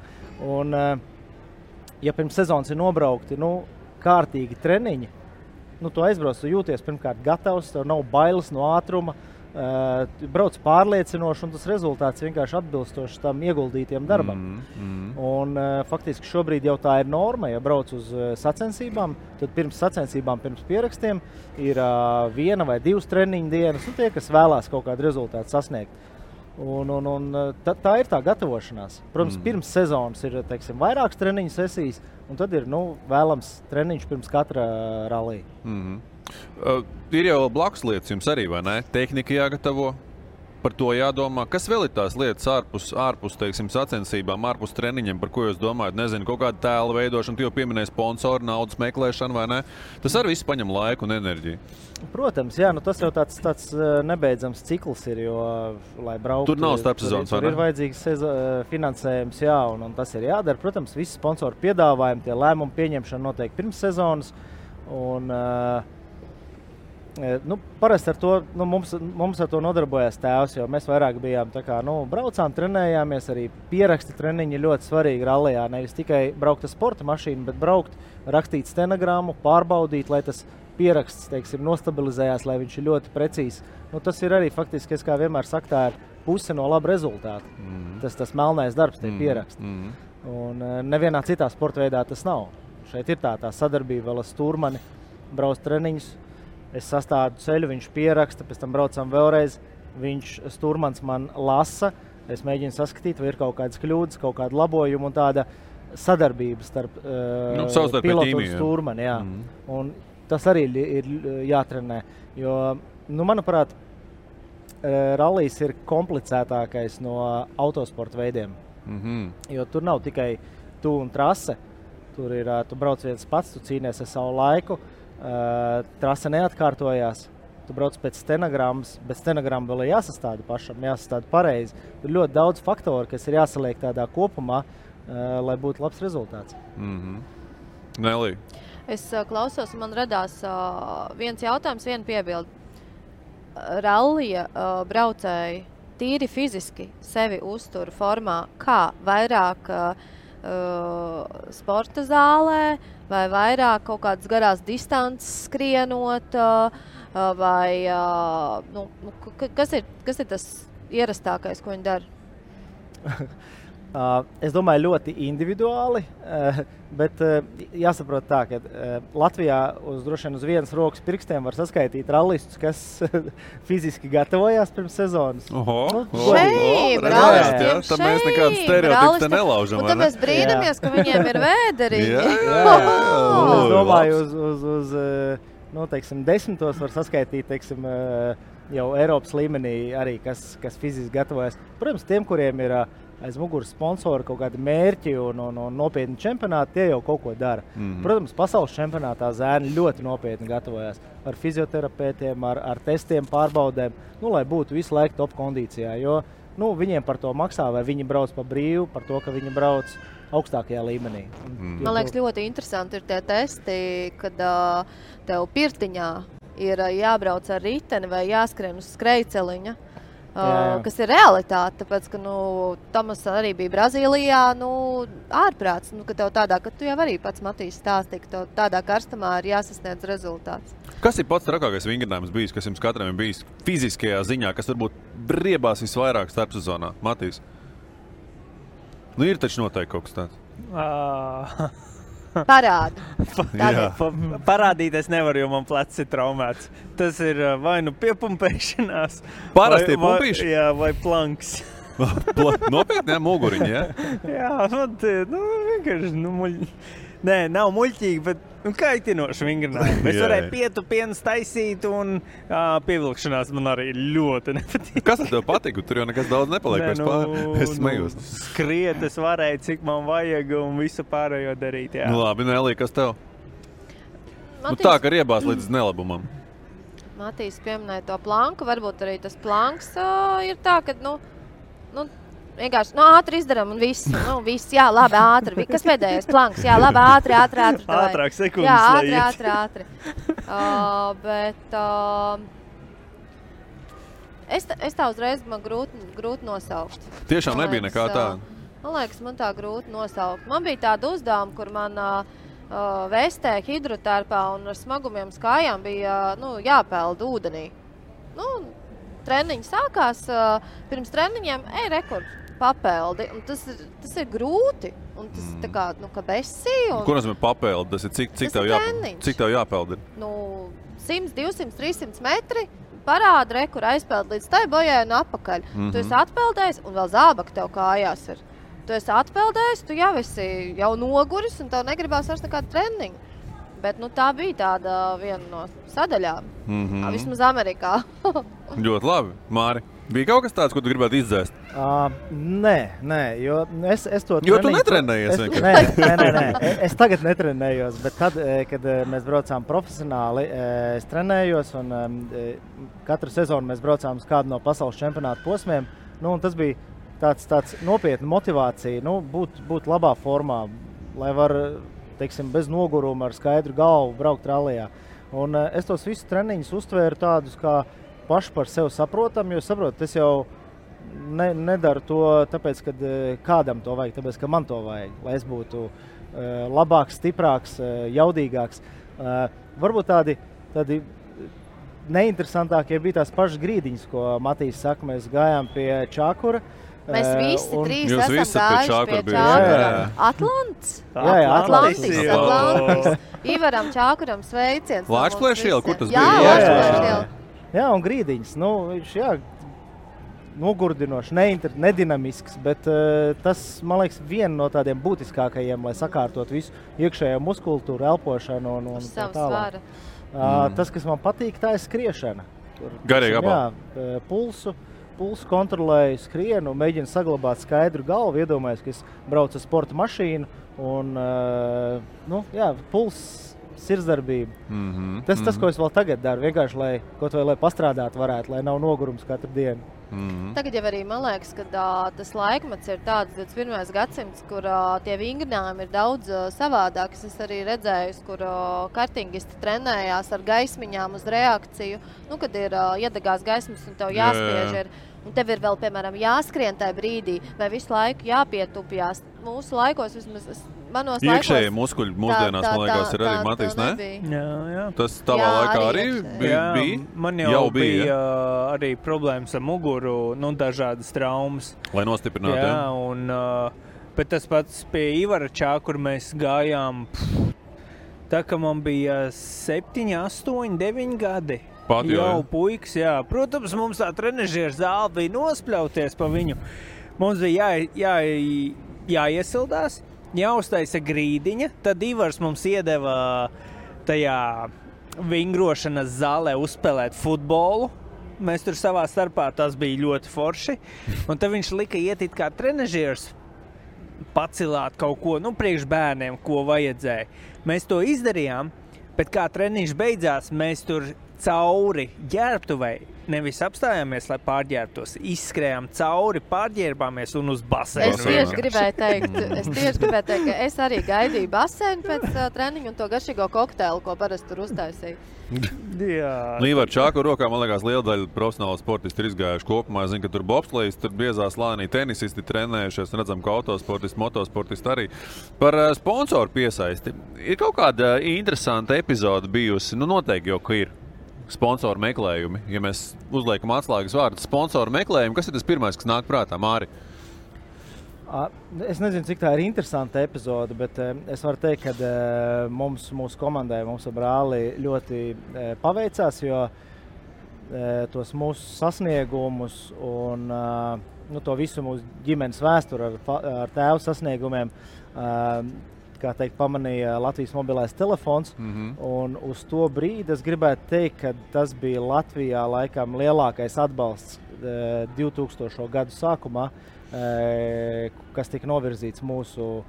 Un, ja pirms sezonas ir nobraukti, nu, kārtīgi treniņi, nu, tu aizbrauc, tu jūties pirmkārt gatavs, tev nav bailes no ātruma, brauc pārliecinoši, un tas rezultāts vienkārši atbilstoši tam ieguldītiem darbam. Un faktiski šobrīd jau tā ir norma, ja brauc uz sacensībām, tad pirms sacensībām, pirms pierakstiem ir 1 vai 2 treniņu dienas, un tie, kas vēlās kaut kādu rezultātu sasniegt. Un tā ir tā gatavošanās. Protams, pirms sezonas ir, teiksim, vairākas treniņu sesijas, un tad ir, nu, vēlams treniņš pirms katra rallija. Ir jau blakus lietas jums arī, vai ne? Tehnika jāgatavo, par to jādomā. Kas vēl ir tās lietas ārpus teiksim, sacensībām, ārpus treniņiem, par ko jūs domājat? Nezinu, kaut kāda tēla veidošana, tu jau pieminēji sponsoru, naudas meklēšanu, vai ne? Tas arī viss paņem laiku un enerģiju. Protams, jā, nu tas jau tāds nebeidzams cikls ir, jo, lai brauktu... Tur nav starpsezonas, vai ne? Tur ir vajadzīgs finansējums, jā, un tas ir jādara. Protams, visi sponsoru piedāvājumi, tie lēmumu pieņemšana notiek pirms sezonas, un... Nu, parasti ar to, nu, mums ar to nodarbojās tēvs, jo mēs vairāk bijām tā kā, nu, braucām, trenējāmies, arī pieraksti treniņi ļoti svarīgi rallijā. Nevis tikai braukt ar sporta mašīnu, bet braukt, rakstīt stenogrammu, pārbaudīt, lai tas pieraksts, teiksim, nostabilizējās, lai viņš ir ļoti precīzs. Nu, tas ir arī faktiski, es kā vienmēr saku, tā ir puse no laba rezultāta. Tas melnais darbs, tie pieraksti. Un nevienā citā sporta veidā tas nav. Šeit ir tā sadarbība vēl ar stūrmani, brauc treniņus. Es sastādu ceļu, viņš pieraksta, pēc tam braucam vēlreiz, stūrmans man lasa, es mēģinu saskatīt, vai ir kaut kādas kļūdas, kaut kāda labojuma un tāda sadarbība starp pilotu un stūrmani. Jā. Un tas arī ir jātrenē, jo, nu, manuprāt, rallijs ir komplicētākais no autosporta veidiem, jo tur nav tikai tu un trase, tur ir, tu brauc viens pats, tu cīnies ar savu laiku, trase neatkārtojās, tu brauc pēc stenogrammas, bet stenogramma vēl ir jāsastāda pašam, jāsastāda pareizi. Tur ļoti daudz faktoru, kas ir jāsaliek tādā kopumā, lai būtu labs rezultāts. Nelī. Es klausos, man radās viens jautājums, viena piebilde. Rallija braucēji tīri fiziski sevi uztur formā, kā vairāk sporta zālē, vai vairāk kaut kādas garās distances skrienot, vai kas ir tas ierastākais, ko viņi dara? Es domāju, ļoti individuāli, bet jāsaprot tā, ka Latvijā droši vien uz vienas rokas pirkstiem var saskaitīt rallistus, kas fiziski gatavojās pirms sezonas. Tam mēs nekādas stereotipus te nelaužam. Un tad mēs brīnamies, ka viņiem ir vēderiņi. Es domāju, uz teiksim, 10 var saskaitīt, teiksim, jau Eiropas līmenī arī, kas fiziski gatavojas. Protams, tiem, kuriem ir aiz muguras sponsori kaut kādi mērķi un nopietni čempionāti, tie jau kaut ko dara. Protams, pasaules čempionātā zēni ļoti nopietni gatavojas ar fizioterapeitiem, ar testiem, pārbaudēm, lai būtu visu laiku top kondīcijā, jo viņiem par to maksā, vai viņi brauc pa brīvu, par to, ka viņi brauc augstākajā līmenī. Man liekas, ļoti interesanti ir tie testi, kad tev pirtiņā ir jābrauc ar riteni vai jāskrien uz skrejceliņa, kas ir realitāte, tāpēc, ka Tomas arī bija Brazīlijā, ārprāts, ka tev tādā, ka tu jau arī pats Matīs stāstīja, ka tev tādā karstumā ir jāsasniedz rezultāts. Kas ir pats trakākais vingrinājums bijis, kas jums katram ir bijis fiziskajā ziņā, kas varbūt briebās visvairāk starpsezonā? Matīs? Ir taču noteikti kaut kas tāds. Parādi. Parādīties nevar, jo man plecs ir traumēts. Tas ir vai kaitinoši vingrinājumi. Es varēju pietupiens taisīt pievilkšanās man arī ļoti nepatīk. Kas tev patika? Tur jau nekas daudz nepaliek vairs pār. Es smējos. Skriet es varēju, cik man vajag un visu pārējo darīt. Jā. Labi, Nelī, kas tev? Tā, ka riebās līdz nelabumam. Matīs pieminēja to planku. Varbūt arī tas planks ir tā, ka, vienkārši, ātri izdaram un viss. Viss, jā, labi, ātri. Kas pēdējais planks? Jā, labi, ātri. Ātrāk sekundes. Jā, ātri. Bet es tā uzreiz man grūti nosaukt. Tiešām nebija nekā tāda? Man liekas, man tā grūti nosaukt. Man bija tāda uzdevuma, kur man vestē hidrotērpā un ar smagumiem skājām bija jāpeld ūdenī. Treniņi sākās, pirms treniņiem, rekord papeldi. Un tas ir grūti. Un tas tā kā, ka besi. Ko nozīmē papeldi? Tas ir cik tev jāpeldi? 100, 200, 300 metri. Parāda rekur aizpeld līdz tai bojai un apakaļ. Tu esi atpeldējis un vēl zābaka tev kājās ir. Tu esi atpeldējis, tu jau esi noguris un tev negribās vairs nekādu treniņu. Bet tā bija tāda viena no sadaļām. Vismaz Amerikā. Ļoti labi. Māri, bija kaut kas tāds, ko tu gribētu izdzēst? Nē, jo es to treniņu... Jo tu netrenējies vienkārši? Nē. Es tagad netrenējos, bet tad, kad mēs braucām profesionāli, es trenējos un katru sezonu mēs braucām uz kādu no pasaules čempionātu posmiem. Un tas bija tāds nopietna motivācija, būt labā formā, lai var, teiksim, bez noguruma ar skaidru galvu braukt rallijā. Un es tos visus treniņus uztvēru tādus kā paši par sevi saprotam, jo saprotu, es jau nedaru to tāpēc, ka kādam to vajag, tāpēc, ka man to vajag, lai es būtu labāks, stiprāks, jaudīgāks. Varbūt tādi neinteresantākie bija tās pašas grīdiņas, ko Matīs saka, mēs gājām pie Čākura. Mēs visi trīs esam gājuši pie Čākura. Atlants? Jā, Atlantis. Ivaram Čākuram sveiciens. Lāčplēša iela, kur tas bija? Jā, Lāčplēša iela. Jā, un grīdiņas. Viņš, nogurdinošs, nedinamisks, bet tas, man liekas, viena no tādiem būtiskākajiem, lai sakārtot visu iekšējo muskultūru, elpošanu un tā tālāk. Tas, kas man patīk, tā ir skriešana. Garīgi apā. Jā, pulsu kontrolēju, skrienu, mēģinu saglabāt skaidru galvu, iedomājos, ka es braucu ar sporta mašīnu un, puls, sirdsdarbība. Tas, ko es vēl tagad daru, vienkārši, lai pastrādāt varētu, lai nav nogurums katru dienu. Tagad jau arī man liekas, ka tas laikmets ir tāds 21. gadsimts, kur tie vingrinājumi ir daudz savādāks. Es arī redzēju, kur kartingisti trenējās ar gaismiņām uz reakciju. Kad ir iedegās gaismas un tev jāspiež ir. Un tev ir vēl, piemēram, jāskrien tajā brīdī, vai visu laiku jāpietupjās. Mūsu laikos, vismaz manos laikos... Iekšējie muskuļi mūsdienās, man liekas, ir arī Matīs, ne? Jā. Tas tavā laikā arī bija? Man jau bija arī problēmas ar muguru, dažādas traumas. Lai nostiprinātu, jā? Jā, bet tas pats pie Ivara Čākura mēs gājām, tā ka man bija 7, 8, 9 gadi. Jau puikas, jā. Protams, mums tā trenežieru zāle bija nospļauties pa viņu. Mums bija jāiesildās, jāuztaisa grīdiņa, tad Ivars mums iedeva tajā vingrošanas zālē uzspēlēt futbolu. mēs tur savā starpā, tas bija ļoti forši. Un tad viņš lika iet it kā trenažieris pacilāt kaut ko, priekš bērniem, ko vajadzēja. Mēs to izdarījām, bet kā treniņš beidzās, mēs tur cauri ģērbtuvei nevis apstājāmies, lai pārģērbtos, izskrējām cauri, pārģērbāmies un uz baseinu. Es tieši gribēju teikt, ka es arī gaidīju baseinu pēc treniņa un to garšīgo kokteili, ko parasti tur uztaisīju. Līva ar čāku rokā, man liekas, liela daļa profesionāla sportisti ir izgājuši kopumā. Es zinu, ka tur bobslejs, tur biezā slānī tenisisti trenējušies, redzam, ka autosportisti, motosportisti arī. Par sponsoru piesaisti. Ir kaut kāda interesanta epizode bijusi, noteikti jau, ka ir. Sponsoru meklējumi. Ja mēs uzliekam atslēgas vārdu sponsoru meklējumi, kas ir tas pirmais, kas nāk prātā, Māri? Es nezinu, cik tā ir interesanta epizode, bet es varu teikt, ka mūsu komandai, mums ar brāli ļoti paveicās, jo tos mūsu sasniegumus un to visu mūsu ģimenes vēsturi ar tēvu sasniegumiem kā teikt, pamanīja Latvijas mobilais telefons, un uz to brīdi es gribētu teikt, ka tas bija Latvijā laikam lielākais atbalsts 2000. Gadu sākumā, kas tika novirzīts mūsu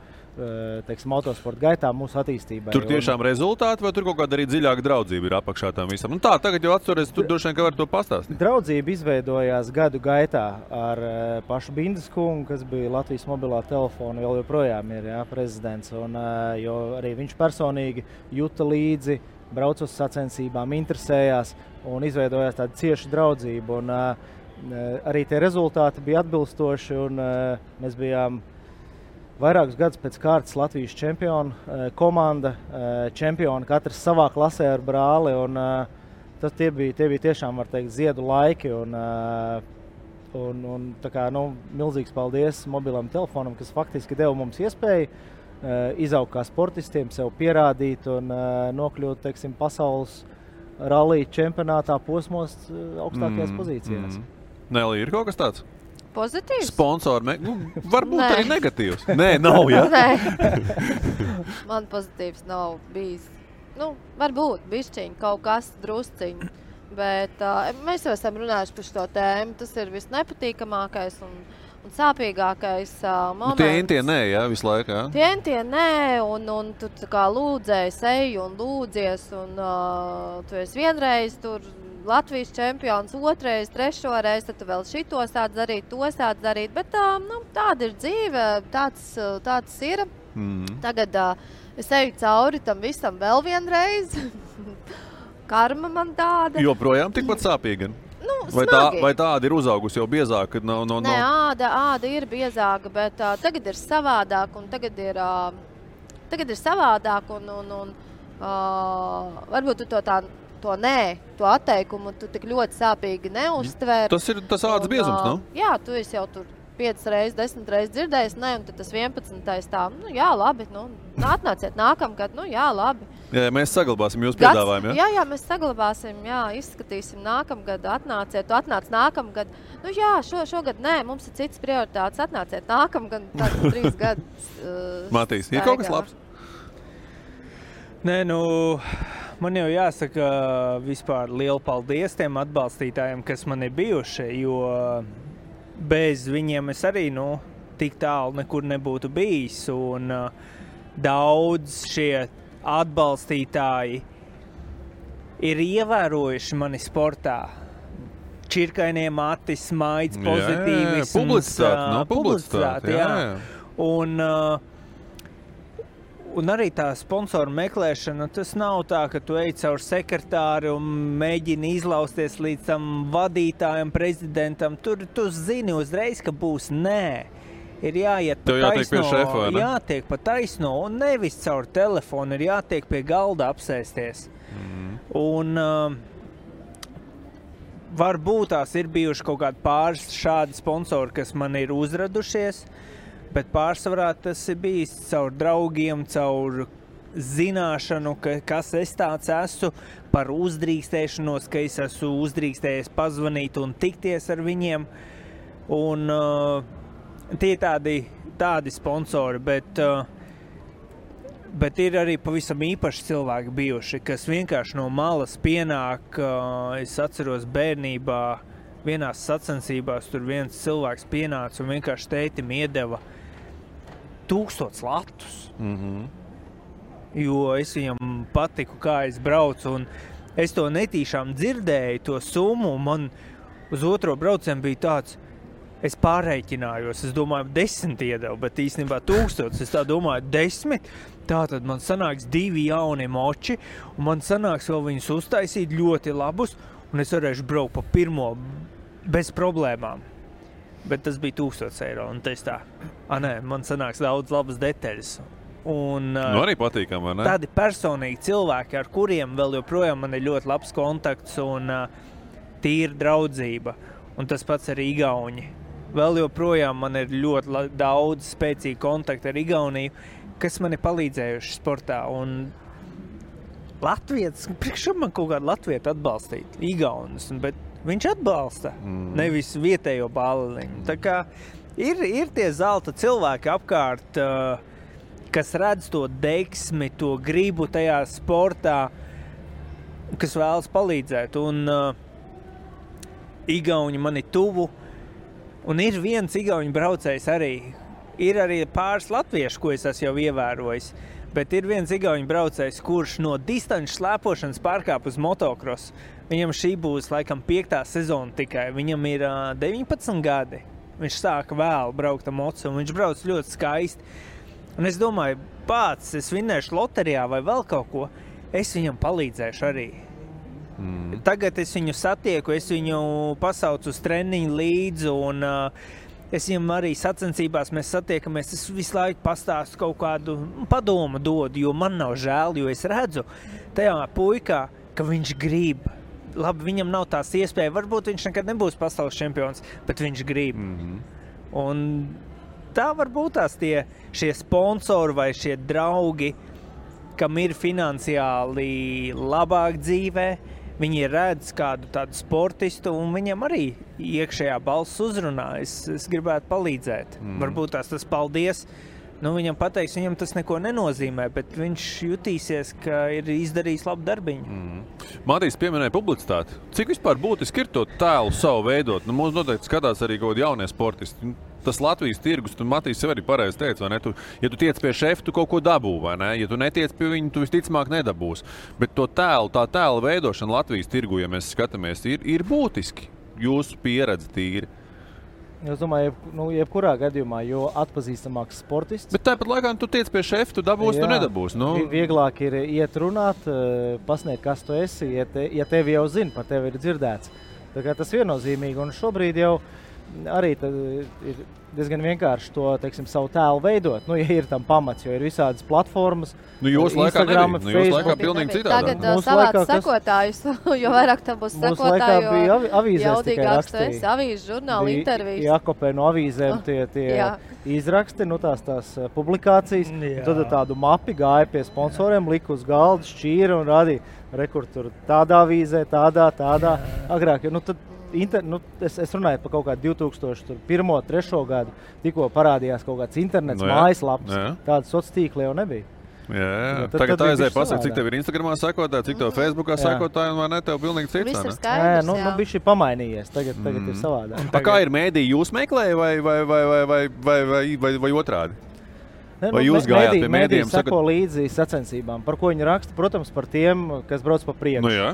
motosporta gaitā, mūsu attīstībai. Tur tiešām rezultāti vai tur kaut kāda arī dziļāka draudzība ir apakšā tam visam? Tā, tagad jau atceries, tur droši vien, ka var to pastāstīt. Draudzība izveidojās gadu gaitā ar pašu Bindas kungu, kas bija Latvijas mobilā telefona, vēl joprojām ir prezidents, un jo arī viņš personīgi juta līdzi, brauc uz sacensībām, interesējās un izveidojās tāda cieša draudzība. Un arī tie rezultāti bija atbilstoši, un mēs bijām vairākus gadus pēc kārtas Latvijas čempiona komanda, čempioni katrs savā klasē ar brāli, un tie bija tiešām, var teikt, ziedu laiki, un tā kā, milzīgs paldies mobilam telefonam, kas faktiski deva mums iespēju izaugt kā sportistiem, sev pierādīt un nokļūt, teiksim, pasaules rallija čempionātā posmos augstākajās pozīcijās. Nelī, ir kaut kas tāds? Pozitīvs? Sponsori, varbūt arī negatīvs. Nē, nav, ja? Nē. Man pozitīvs nav bijis. Varbūt bišķiņ, kaut kas drusciņ. Bet mēs jau esam runājuši par šo tēmu. Tas ir visnepatīkamākais un sāpīgākais moments. Tie nē, jā, visu laiku, jā? Tie nē, un tu kā lūdzēji seju un lūdzies, un tu esi vienreiz tur Latvijas čempions, otrais, trešo reizi, tad tu vēl šito sāc darīt, to sāc darīt, bet tāda ir dzīve, tāds ir. Tagad es eju cauri tam visam vēl vienreiz. Karma man tāda. Joprojām tikpat sāpīga? Vai tāda ir uzaugusi jau biezāka? Nē, āda ir biezāka, bet tagad ir savādāk, un tagad ir savādāk, un varbūt tu to atteikumu tu tik ļoti sāpīgi neuztver. Tas ir tas ādas biezums, nav? Jā, tu esi jau tur 5 reizes, 10 reizes dzirdējis, un tad tas 11. tā, jā, labi, atnāciet nākamgad, jā, labi. Jā, mēs saglabāsim jūsu piedāvājumu, jā? Jā, mēs saglabāsim, jā, izskatīsim nākamgad, atnāciet, tu atnāc nākamgad. Jā, šogad nē, mums ir cits prioritātes, atnāciet nākamgad, tad 3 gadus. Matīs, ir kaut kas labs? Nē, man jau jāsaka vispār lielu paldies tiem atbalstītājiem, kas man ir bijuši, jo bez viņiem es arī, tik tālu nekur nebūtu bijis, un daudz šie atbalstītāji ir ievērojuši mani sportā. Čirkainie mati, smaids, pozitīvisms. Publicitāte, jā. Un arī tā sponsoru meklēšana, tas nav tā, ka tu ej caur sekretāri un mēģini izlausties līdz tam vadītājam, prezidentam. Tur tu zini uzreiz, ka būs nē. Ir jāiet pa taisno. Jātiek pie šefa, vai ne? Jātiek pa taisno un nevis caur telefonu, ir jātiek pie galda apsēsties. Un varbūt tās ir bijuši kaut kādi pāris šādi sponsori, kas man ir uzradušies, bet pārsvarā tas ir bijis caur draugiem, caur zināšanu, kas es tāds esmu, par uzdrīkstēšanos, ka es esmu uzdrīkstējies pazvanīt un tikties ar viņiem. Un tie tādi sponsori, bet Bet ir arī pavisam īpaši cilvēki bijuši, kas vienkārši no malas pienāk. Es atceros bērnībā, vienās sacensībās tur viens cilvēks pienāca un vienkārši tētim iedeva 1000 latus. Jo es viņam patiku, kā es braucu, un es to netīšām dzirdēju, to summu, un man uz otro braucienu bija tāds, es pārreikinājos, es domāju, 10 iedevu, bet īstenībā 1000, es tā domāju, 10, tātad man sanāks 2 jauni moči, un man sanāks vēl viņus uztaisīt ļoti labus, un es varēšu braukt pa pirmo bez problēmām. Bet tas bija 1000 eiro, un es tā, man sanāks daudz labas detaļas. Un, arī patīkam, vai ne? Tādi personīgi cilvēki, ar kuriem vēl joprojām man ir ļoti labs kontakts un tīra draudzība. Un tas pats ar Igauni. Vēl joprojām man ir ļoti daudz spēcīgi kontakti ar Igauniju, kas man ir palīdzējuši sportā. Un Latvijas, priekš man kaut kādu latvietu atbalstīt, Igaunis, bet viņš atbalsta, nevis vietējo bāliņu. Tā kā ir tie zelta cilvēki apkārt, kas redz to deksmi, to gribu tajā sportā, kas vēlas palīdzēt. Un Igauni man ir tuvu, un ir viens igauņu braucējs arī. Ir arī pāris latviešu, ko es esmu jau ievērojis, bet ir viens igauņu braucējs, kurš no distanču slēpošanas pārkāp uz motokrosu. Viņam šī būs laikam 5. sezona tikai. Viņam ir 19 gadi. Viņš sāka vēl braukt ar mocu, un viņš brauc ļoti skaisti. Un es domāju, pats, es vinnēšu loterijā vai vēl kaut ko, es viņam palīdzēšu arī. Tagad es viņu satieku, es viņu pasaucu uz treniņu līdzi, un es viņam arī sacensībās mēs satiekamies, es visu laiku pastāstu kaut kādu padomu dodu, jo man nav žēl, jo es redzu tajā puikā, ka viņš grib. Labi, viņam nav tās iespēja, varbūt viņš nekad nebūs pasaules čempions, bet viņš grib. Un tā var būt tās šie sponsori vai šie draugi, kam ir finansiāli labāk dzīvē, viņi redz kādu tādu sportistu un viņam arī iekšējā balss uzrunā. Es gribētu palīdzēt. Varbūt tas paldies. Viņam pateiks, viņam tas neko nenozīmē, bet viņš jutīsies, ka ir izdarījis labu darbiņu. Matīs pieminēja publicitāti. Cik vispār būtiski ir to tēlu savu veidot? Mums noteikti skatās arī kaut kādi jaunie sportisti. Tas Latvijas tirgus, tu Matīs sev arī pareizi teici, vai ne? Ja tu tiec pie šefa, tu kaut ko dabū, vai ne? Ja tu netiec pie viņa, tu visticamāk nedabūs. Bet tā tēla veidošana Latvijas tirgu, ja mēs skatāmies, ir būtiski. Jūsu pieredze tīri. Es domāju, jebkurā gadījumā, jo atpazīstamāks sportists. Bet tāpat laikā tu tiec pie šefa, tu dabūsi, tu nedabūsi. Vieglāk ir iet runāt, pasniegt, kas tu esi, ja tevi jau zina, par tevi ir dzirdēts. Tā kā tas viennozīmīgi, un šobrīd jau arī ir diezgan vienkārši to, savu tēlu veidot. Ja ir tam pamats, jo ir visādas platformas, Instagram, Facebook. Jūs laikā pilnīgi citādā. Tagad savāc sekotājus, jo vairāk tam būs sekotāju, jo jaudīgāks tu esi, avīzes, žurnāli, intervijas. Jākopē no avīzēm tie izraksti, tās publikācijas. Tad tādu mapi gāja pie sponsoriem, lika uz galda, šķīra un rādīja rekord tur tādā avīzē, tādā. Agrāk, es runāju par kaut kādu 2001. 3. gadu, tikko parādījās kaut kāds internets, mājaslaps, tādas sociālās tīkli jau nebija. Jā. Tagad aizēja pasaka, cik tev ir Instagramā sekotāji, cik tev Facebookā sekotāji, un vai ne, tev pilnīgi cits. Viss ir skaidrs, bija šī pamainījies, tagad ir savādāk. Kā ir mēdī, jūs meklēja vai otrādi? Vai jūs gājāt pie mēdījiem? Sako līdzi sacensībām, par ko viņi raksta, protams, par tiem, kas brauc pa priekšu. Jā,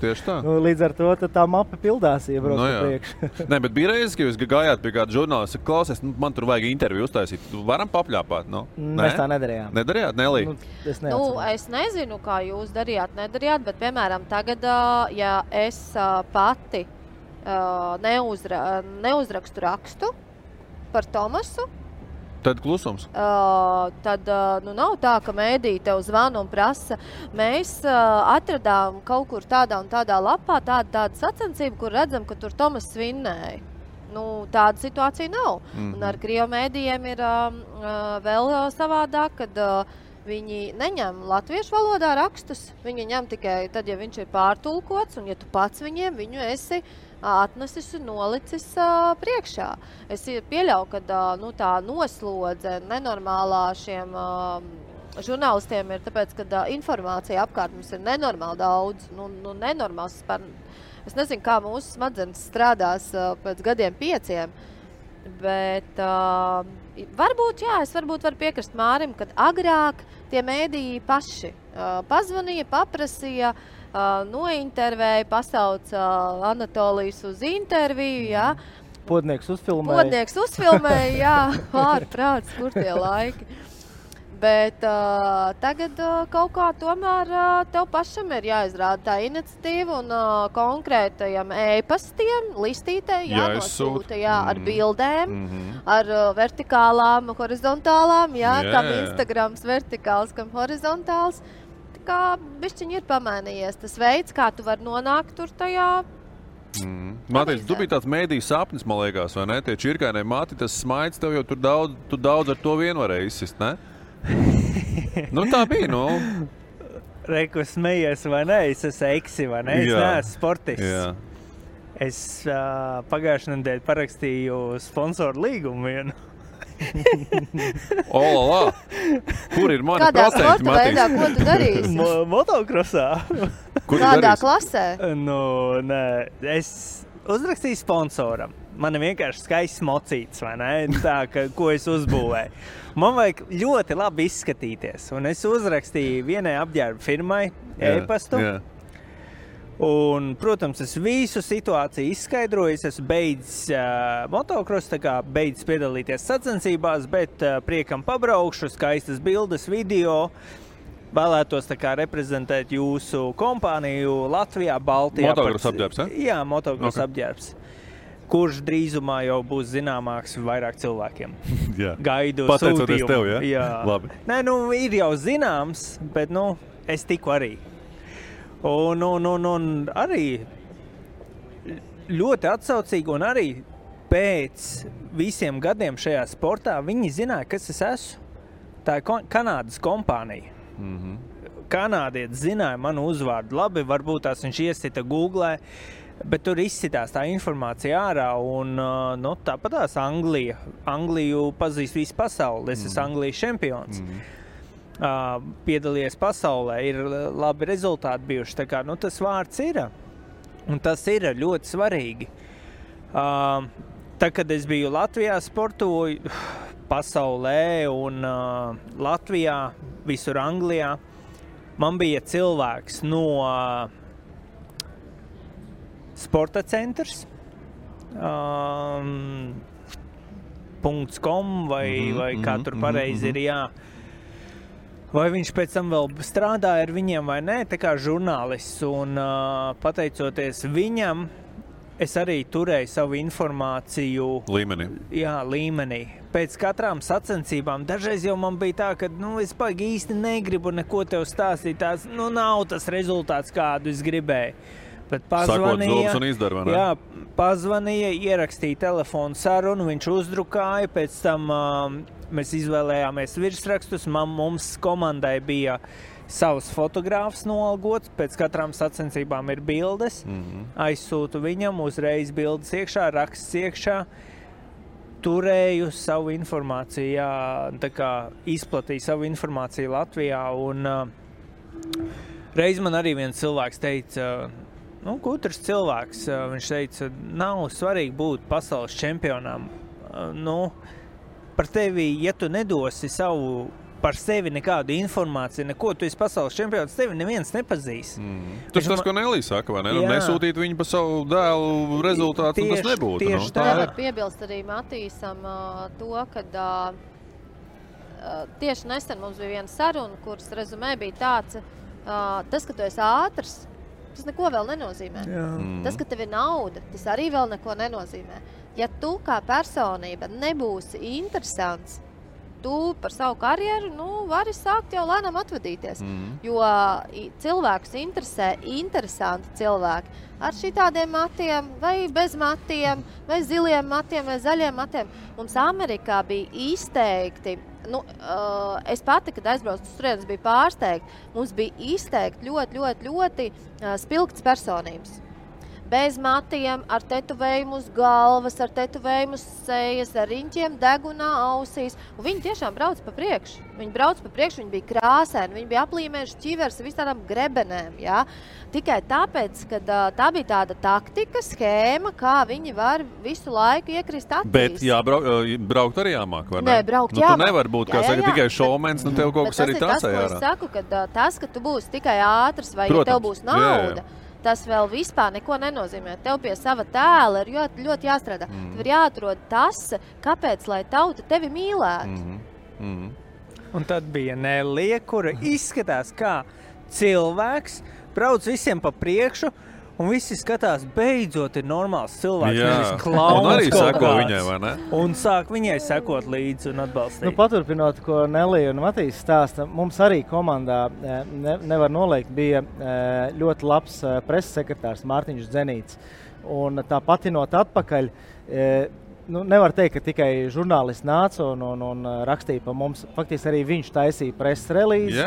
tieši tā. Līdz ar to tā mapa pildās, ja brauc pa priekšu. Nē, bet bija reizes, ka jūs gājāt pie kāda žurnālista, klausies, man tur vajag interviju uztaisīt. Varam papļāpāt? Mēs tā nedarījām. Nedarījāt, Nelī? Es nezinu, kā jūs nedarījāt, bet, piemēram, tagad, ja es pati neuzrakstu rakstu par Tomasu, tad klusums. Tad nav tā, ka mēdī tev zvana un prasa. Mēs atradām kaut kur tādā un tādā lapā tādu sacensību, kur redzam, ka tur Tomas svinnēja. Tāda situācija nav. Un ar Krievu mēdījiem ir vēl savādāk, kad viņi neņem latviešu valodā rakstus. Viņi ņem tikai tad, ja viņš ir pārtulkots, un ja tu pats viņu esi atnesis un nolicis priekšā. Es pieļauju, ka tā noslodze nenormālā šiem žurnālistiem ir tāpēc, ka informācija apkārt mums ir nenormāli daudz. Nenormāls. Es nezinu, kā mūsu smadzenes strādās pēc gadiem 5, bet varbūt varu piekrist Mārim, kad agrāk tie mēdīji paši pazvanīja, paprasīja, nointervēja, pasauca Anatolijas uz interviju, jā. Podnieks uzfilmēja, jā, ārprāts, kur tie laiki. Bet tagad kaut kā tomēr tev pašam ir jāizrāda tā iniciatīva un konkrētajam e-pastiem, listītē jānosūta, ar bildēm, ar vertikālām, horizontālām, kam Instagrams vertikāls, kam horizontāls. Tā kā bišķiņ ir pamainījies tas veids, kā tu vari nonākt tur tajā. Mātīs, tu biji tāds mēdīju sapnis, man liekas, vai ne? Tie čirkainie mati, tas smaids tev jau tu daudz ar to vien varēji izsist, ne? Tā bija, Reku smejies, vai ne? Es esmu eksi, vai ne? Es neesmu sportists. Jā. Es pagājušajā nedēļā parakstīju sponsoru līgumu vienu. Olā! Kur ir mani procenti, Matīs? Kādā sporta veidā, ko tu darīsi? Motokrosā. Kādā klasē? Nē, es uzrakstīju sponsoram. Man ir vienkārši skaists mocīts, vai ne? Tā, ko es uzbūvēju. Man vajag ļoti labi izskatīties. Un es uzrakstīju vienai apģērba firmai e-pastu. Un, protams, es visu situāciju izskaidroju. Es esmu beidzis motokrosu, beidzis piedalīties sacensībās, bet priekam pabraukšu, skaistas bildes, video. Vēlētos reprezentēt jūsu kompāniju Latvijā, Baltijā. Motokrosu apģērbs, Jā, motokrosu apģērbs. Kurš drīzumā jau būs zināmāks vairāk cilvēkiem. Gaidu pateicoties sūtījumu. Tev, jā? Labi. Nē, ir jau zināms, bet, es tiku arī. Un arī ļoti atsaucīgi, un arī pēc visiem gadiem šajā sportā viņi zināja, kas es esmu. Tā ir Kanādas kompānija. Kanādietis zināja manu uzvārdu labi, varbūt tās viņš iesita Googlē, bet tur izsitās tā informācija ārā, un tāpatās Angliju pazīst visu pasauli. Es esmu Anglijas čempions. Piedalījies pasaulē, ir labi rezultāti bijuši. Tā kā, tas vārds ir, un tas ir ļoti svarīgi. Tad, kad es biju Latvijā, sportoju pasaulē un Latvijā, visur Anglijā, man bija cilvēks no Sporta centrs, .com vai kā tur pareizi ir, jā. Vai viņš pēc tam vēl strādāja ar viņiem vai nē, tā kā žurnālists. Un pateicoties viņam, es arī turēju savu informāciju līmenī. Pēc katrām sacensībām dažreiz jau man bija tā, ka es baigi īsti negribu neko tev stāstīt. Tās, nav tas rezultāts, kādu es gribēju. Bet pazvanīja, ierakstīja telefonu sarunu, viņš uzdrukāja, pēc tam mēs izvēlējāmies virsrakstus, mums komandai bija savs fotogrāfs noalgots, pēc katrām sacensībām ir bildes, aizsūtu viņam, uzreiz bildes iekšā, raksts iekšā, turēju savu informāciju, izplatīju savu informāciju Latvijā, un reiz man arī viens cilvēks teica, gudrs cilvēks, viņš teica, nav svarīgi būt pasaules čempionām. Par tevi, ja tu nedosi par sevi nekādu informāciju, neko, tu esi pasaules čempions, tevi neviens nepazīst. Tas, ko Nelī saka, vai ne? Nesūtīt viņu pa savu dēlu rezultātu, tas nebūtu. Tieši tā. Var piebilst arī Matīsam to, kad tieši nesen mums bija viena saruna, kuras rezumē bija tāds, tas, ka tu esi ātrs, tas neko vēl nenozīmē. Tas, ka tev ir nauda, tas arī vēl neko nenozīmē. Ja tu kā personība nebūsi interesants, tu par savu karjeru vari sākt jau lēnām atvadīties. Jo cilvēkus interesē interesanti cilvēki ar šitādiem matiem, vai bez matiem, vai ziliem matiem, vai zaļiem matiem. Mums Amerikā bija izteikti, es pati, kad aizbraucu uz turienes, biju pārsteigta. Mums bija izteikti ļoti spilgtas personības. bez matiem, ar tetovējumu uz galvas, ar tetovējumu uz sejas, ar riņķiem degunā ausīs. Un viņi tiešām brauc pa priekšu. Viņi brauc pa priekšu, viņi bija krāsēni, viņi bija aplīmējuši ķivers ar visādām grebenēm. Ja? Tikai tāpēc, ka tā bija tāda taktika, schēma, kā viņi var visu laiku iekrist acīs. Bet braukt arī jāmāk, vai ne? Nē, braukt jāmāk. Tu nevar būt, kā saka, tikai šovmens, nu tev kaut kas arī trasē ārā. Tas ir tas, ko es saku, ka tas, ka tu būsi tikai ātrs vai ja tev būs nauda, tas vēl vispār neko nenozīmē. Tev pie sava tēla ir ļoti jāstrādā. Tev ir jāatrod tas, kāpēc, lai tauta tevi mīlētu. Un tad bija Nelija, kura izskatās kā cilvēks, brauc visiem pa priekšu, un visi skatās, beidzot ir normāls cilvēks, nevis klauns. Un arī seko viņai, vai ne? Un sāk viņai sekot līdzi un atbalstīt. Nu, paturpinot, ko Nelija un Matīs stāsta, mums arī komandā, nevar noliekt, bija ļoti labs preses sekretārs Mārtiņš Dzenīts. Un tā patinot atpakaļ, nevar teikt, ka tikai žurnālisti nāca un rakstīja pa mums. Faktiski arī viņš taisīja preses relīzi,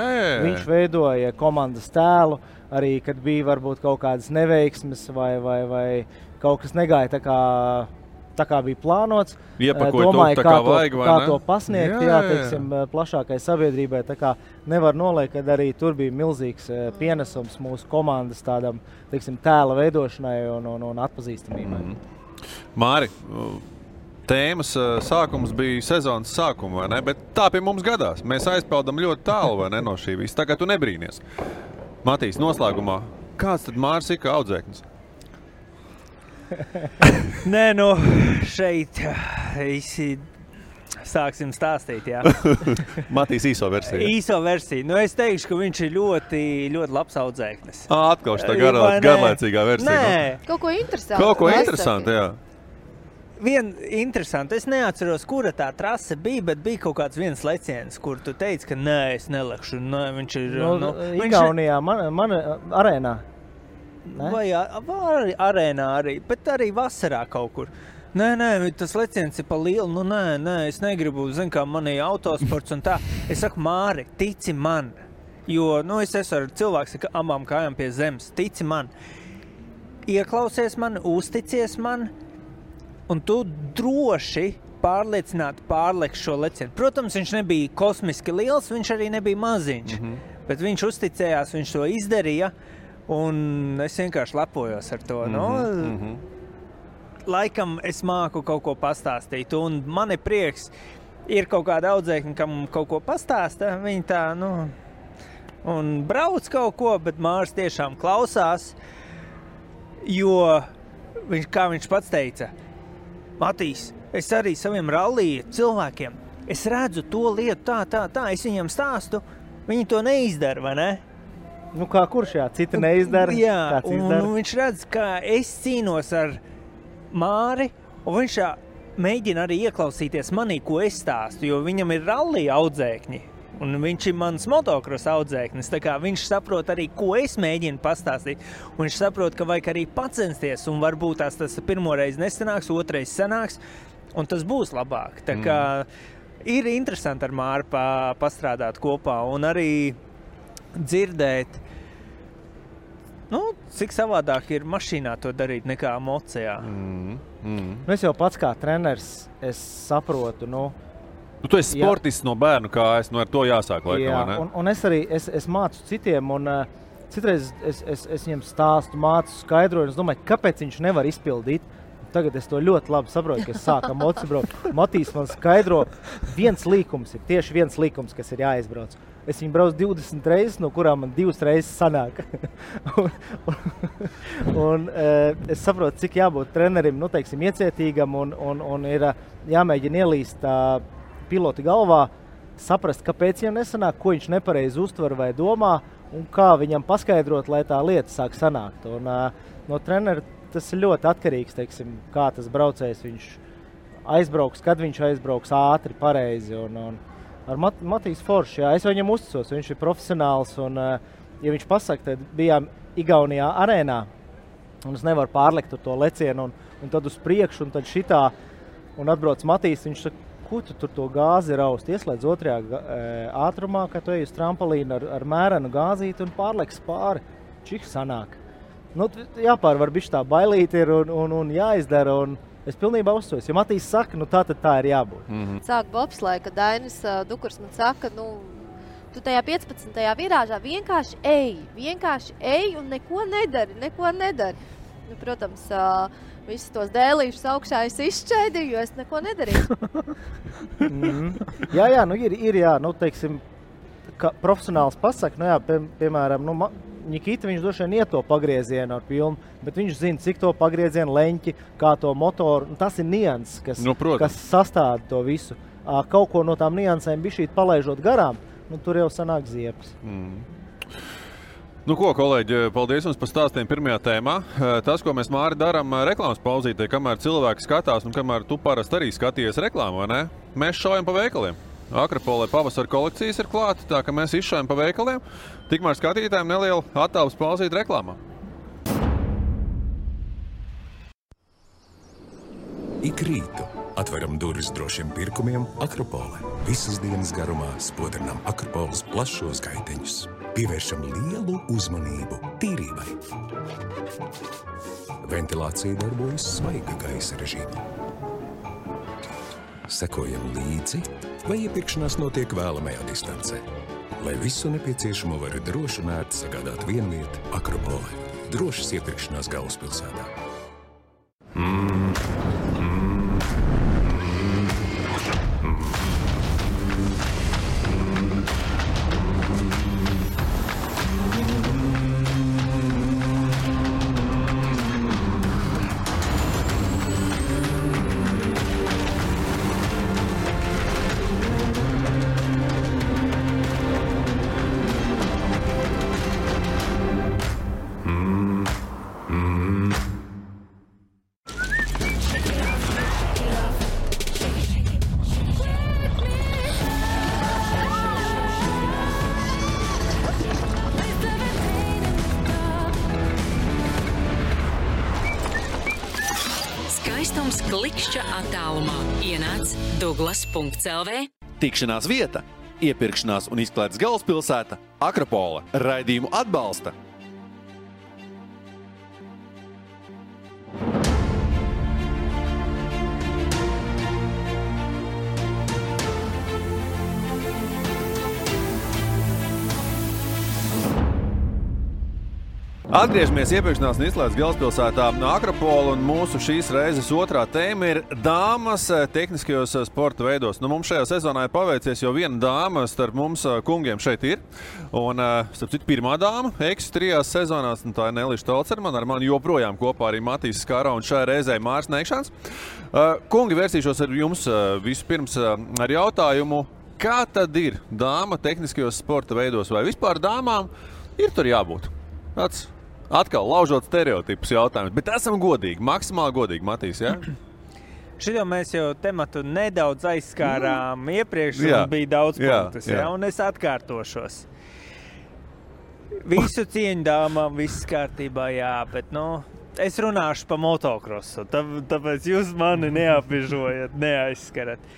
viņš veidoja komandas tēlu, arī kad bija varbūt kaut kādas neveiksmes vai kaut kas negāja tā kā bija plānots. Domāju, kā to pasniegt, teiksim, plašākai sabiedrībai. Tā kā nevar noliekt, kad arī tur bija milzīgs pienesums mūsu komandas tādam, teiksim, tēla veidošanai un atpazīstamībai. Māri, tēmas sākums bija sezonas sākuma, vai ne? Bet tā pie mums gadās. Mēs aizpeldam ļoti tālu, vai ne, no šī visa. Tā kā tu nebrīnies. Matīs, noslēgumā, kāds tad Māris ir kā audzēknis? Nē, šeit sāksim stāstīt, jā. Matīs īso versiju. Īso versiju. Es teikšu, ka viņš ir ļoti, ļoti labs audzēknis. Atkal šitā garlaicīgā versija. Nē, kaut ko interesantu. Kaut ko interesantu, jā. Vien interesanti, es neatceros, kura tā trase bija, bet bija kaut kāds viens leciens, kur tu teici, ka nē, es nelekšu. Nē, viņš ir... Igaunijā, man arēnā. Ne? Vai arēnā arī, bet arī vasarā kaut kur. Nē, tas leciens ir pa lielu, nē, es negribu, kā man ir autosports un tā. Es saku, Māri, tici man, jo, es esmu ar cilvēks ar abām kājām pie zemes, tici man. Ieklausies man, uzticies man, un tu droši pārliecināti pārleks šo lecienu. Protams, viņš nebija kosmiski liels, viņš arī nebija maziņš, bet viņš uzticējās, viņš to izdarīja, un es vienkārši lepojos ar to. Laikam es māku kaut ko pastāstīt, un man ir prieks, ir kaut kāda audzēkņa, kam kaut ko pastāsta, viņi tā, un brauc kaut ko, bet Māris tiešām klausās, jo, kā viņš pats teica, Matīs, es arī saviem rallija cilvēkiem, es redzu to lietu tā, es viņam stāstu, viņi to neizdara, vai ne? Kā kurš citi neizdara? Jā, un viņš redz, kā es cīnos ar Māri, un viņš mēģina arī ieklausīties manī, ko es stāstu, jo viņam ir rallija audzēkņi. Un viņš ir mans motokros audzēknis, tā kā viņš saprot arī, ko es mēģinu pastāstīt. Un viņš saprot, ka vajag arī pacensties, un varbūt tas pirmoreiz nesanāks, otrais sanāks, un tas būs labāk. Tā kā ir interesanti ar Māri pastrādāt kopā, un arī dzirdēt, cik savādāk ir mašīnā to darīt nekā mocijā. Es jau pats kā treneris, es saprotu, Tu esi sportists no bērnu kājas, ar to jāsāk laikam, vai ne? Un es arī es mācu citiem, un citreiz es viņiem stāstu, mācu, skaidroju, un es domāju, kāpēc viņš nevar izpildīt. Tagad es to ļoti labi saprotu, ka es sāku moci braukt. Matīs man skaidro, viens līkums, kas ir jāizbrauc. Es viņu braucu 20 reizes, no kurām man 2 reizes sanāk. un es saprotu, cik jābūt trenerim, iecietīgam, un ir jāmēģina ielīst pilota galvā, saprast, kāpēc viņam nesanāk, ko viņš nepareizi uztver vai domā, un kā viņam paskaidrot, lai tā lieta sāk sanākt. Un no trenera tas ir ļoti atkarīgs, teiksim, kā tas braucējs viņš aizbrauks, kad viņš aizbrauks ātri, pareizi. Un ar Matīs Foršs, es viņam uzticos, viņš ir profesionāls, un ja viņš pasaka, tad bijām Igaunijā arēnā, un es nevaru pārlekt to lecienu, un tad uz priekšu, un tad šitā, un atbrauc Matīs, viņš saka, ko tu tur to gāzi raust, ieslēdz otrajā ātrumā, kad tu ej uz trampolīnu ar mērenu gāzīti un pārleks pāri. Čik sanāk. Nu, jāpārvar bišķi tā bailīti ir un jāizdara, un es pilnībā uzsojos. Ja Matīs saka, nu tā ir jābūt. Sāk bobslē, kad Dainis Dukurs man saka, nu, tu tajā 15. virāžā vienkārši ej un neko nedari. Nu, protams, visus tos dēlīšus augšā es izšķēdīju, jo es neko nedarīju. Jā, nu ir, nu, teiksim, ka profesionāls pasaka, nu jā, piemēram, nu, Nikita, viņš droši vien iet to pagriezienu ar pilnu, bet viņš zina, cik to pagriezienu leņķi, kā to motoru. Tas ir nianses, kas sastāda to visu. Kaut ko no tām niansēm bišķīt palaižot garām, nu, tur jau sanāk ziepes. Nu ko, kolēģi, paldies jums par stāstiem pirmajā tēmā. Tas, ko mēs, Māri, darām reklāmas pauzītē, kamēr cilvēki skatās un kamēr tu parasti arī skaties reklāmu, vai ne? Mēs šaujam pa veikaliem. Akropolē pavasara kolekcijas ir klāta, tā ka mēs izšaujam pa veikaliem. Tikmēr skatītājiem neliela attāvs pauzīt reklāmā. Ik rītu atveram durvis drošiem pirkumiem Akropolē. Visas dienas garumā spodrinām Akropoles plašos gaiteņus. Pievēršam lielu uzmanību tīrībai. Ventilācija darbojas svaiga gaisa režīmā. Sekojam līdzi, vai iepirkšanās notiek vēlamajā distancē. Lai visu nepieciešamo var droši un ērti sagādāt vienvieta Akropolē. Drošas iepirkšanās galvaspilsētā. Klikšķa attālumā ienāc Douglas.lv. Tikšanās vieta, iepirkšanās un izklaides galvaspilsēta Akropole. Raidījumu atbalsta Atgriežamies iepirkšanās un izklaides galvaspilsētā Akropole, un mūsu šīs reizes otrā tēma ir dāmas tehniskajos sporta veidos. Nu, mums šajā sezonā ir paveicies, jo viena dāma starp mums kungiem šeit ir. Un, starp citu, pirmā dāma, Eksi 3 sezonās, un tā ir Nelīša Tolcermana, ar mani joprojām kopā arī Matīs Skara un šajā reizē Māris Neikšāns. Kungi, vērsīšos ar jums vispirms ar jautājumu, kā tad ir dāma tehniskajos sporta veidos, vai vispār dāmām ir tur jābūt? Tāds atkal laužot stereotipus jautājumus, bet esam godīgi, maksimāli godīgi, Matīs, jā? Šito mēs jau tematu nedaudz aizskārām iepriekš, un bija daudz punktus, jā, un es atkārtošos. Visu cieņu dāmām, viss kārtībā, jā, bet, nu, es runāšu pa motokrosu, tāpēc jūs mani neapiežojat, neaizskarat.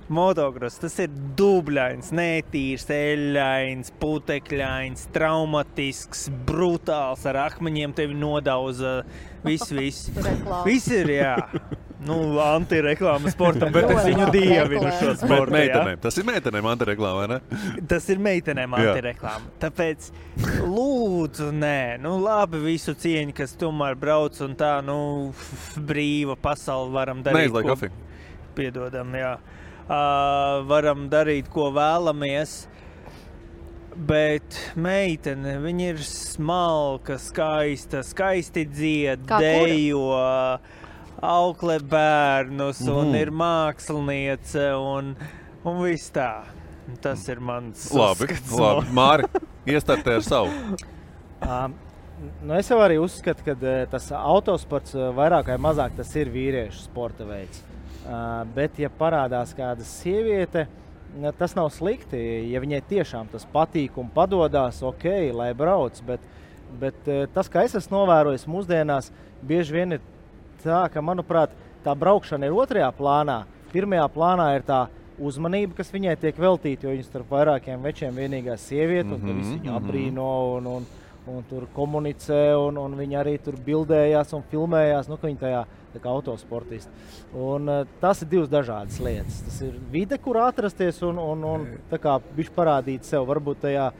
Motokross, tas ir dubļains, netīrs, eļains, putekļains, traumatisks, brutāls, ar akmeņiem tevi nodauza, viss. Viss ir, jā. Nu, antireklāma sportam, bet es viņu dievinu šo sportu, meitenēm. Tas ir meitenēm antireklāma, vai ne? Tas ir meitenēm antireklāma. Tāpēc, lūdzu, nē, nu labi visu cieņu, kas tomēr brauc un tā, nu, brīva pasauli varam darīt. Neizlai kafiju. Piedodam, jā. Varam darīt, ko vēlamies, bet meitene, viņa ir smalka, skaista, skaisti dzied, dejo, auklē bērnus un ir māksliniece un viss tā. Tas ir mans uzskats. Labi. Māri, iestartē ar savu. Nu es jau arī uzskatu, ka tas autosports vairāk vai mazāk tas ir vīriešu sporta veids. Bet, ja parādās kāda sieviete, tas nav slikti. Ja viņai tiešām tas patīk un padodās, ok, lai brauc. Bet tas, kā es esmu novērojis mūsdienās, bieži vien ir tā, ka, manuprāt, tā braukšana ir otrajā plānā. Pirmajā plānā ir tā uzmanība, kas viņai tiek veltīta, jo viņas starp vairākiem večiem vienīgā sieviete, un visi viņu abrīno un tur komunicē, un viņi arī tur bildējās un filmējās, ka viņi tajā tā kā autosportisti. Un tas ir divas dažādas lietas. Tas ir vide, kur atrasties un tā kā bišķi parādīt sev, varbūt tajā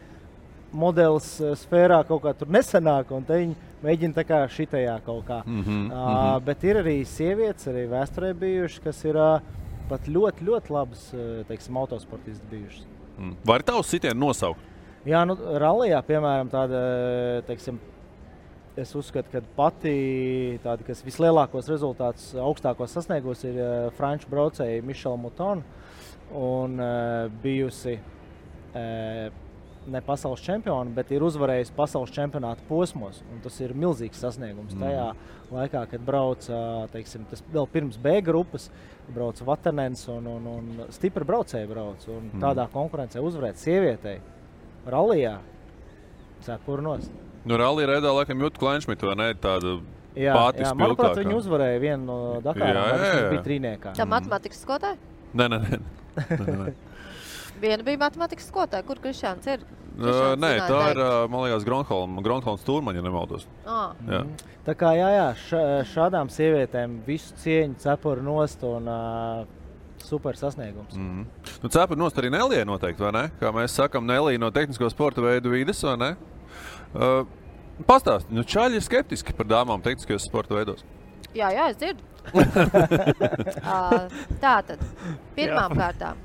modelis sfērā kaut kā tur nesanāk, un te viņi mēģina tā kā šitajā kaut kā. Bet ir arī sievietes, arī vēsturē bijušas, kas ir pat ļoti, ļoti labas, teiksim, autosportisti bijušas. Var tavs sitienu nosaukt? Jā, rallijā, piemēram, tāda, teiksim, es uzskatu, ka pati tāda, kas vislielākos rezultātus augstākos sasniegos, ir franču braucēji Michelle Mouton un bijusi ne pasaules čempioni, bet ir uzvarējusi pasaules čempionāta posmos. Un tas ir milzīgs sasniegums. Tajā laikā, kad brauca, teiksim, tas vēl pirms B grupas, brauca Vatanens un stipri braucēji brauc. Un tādā konkurencē uzvarēt sievietei rallijā cepuru nost. Rallija reidā laikam Jutta Kleinšmita, vai ne? Tāda pati spilgtākā. Manuprāt, viņi uzvarēja vienu no Dakārām, viņš bija trīniekā. Tā matematikas skolotāja? Nē. Viena bija matematikas skolotāja. Kur Krišāns ir? Nē, tā ir, man liekas, Gronholms Turmaņa, ja nemaldos. Jā. Tā kā, šādām sievietēm visu cieņu cepuru nost un super sasniegums. Cepuru nost arī Nelija noteikti, vai ne? Kā mēs sakam, Nelija no tehnisko sporta veidu vides, vai ne? Pastāst, čaļi ir skeptiski par dāmām tehniskajos sporta veidos. Jā, es dzirdu. Tātad, pirmām kārtām.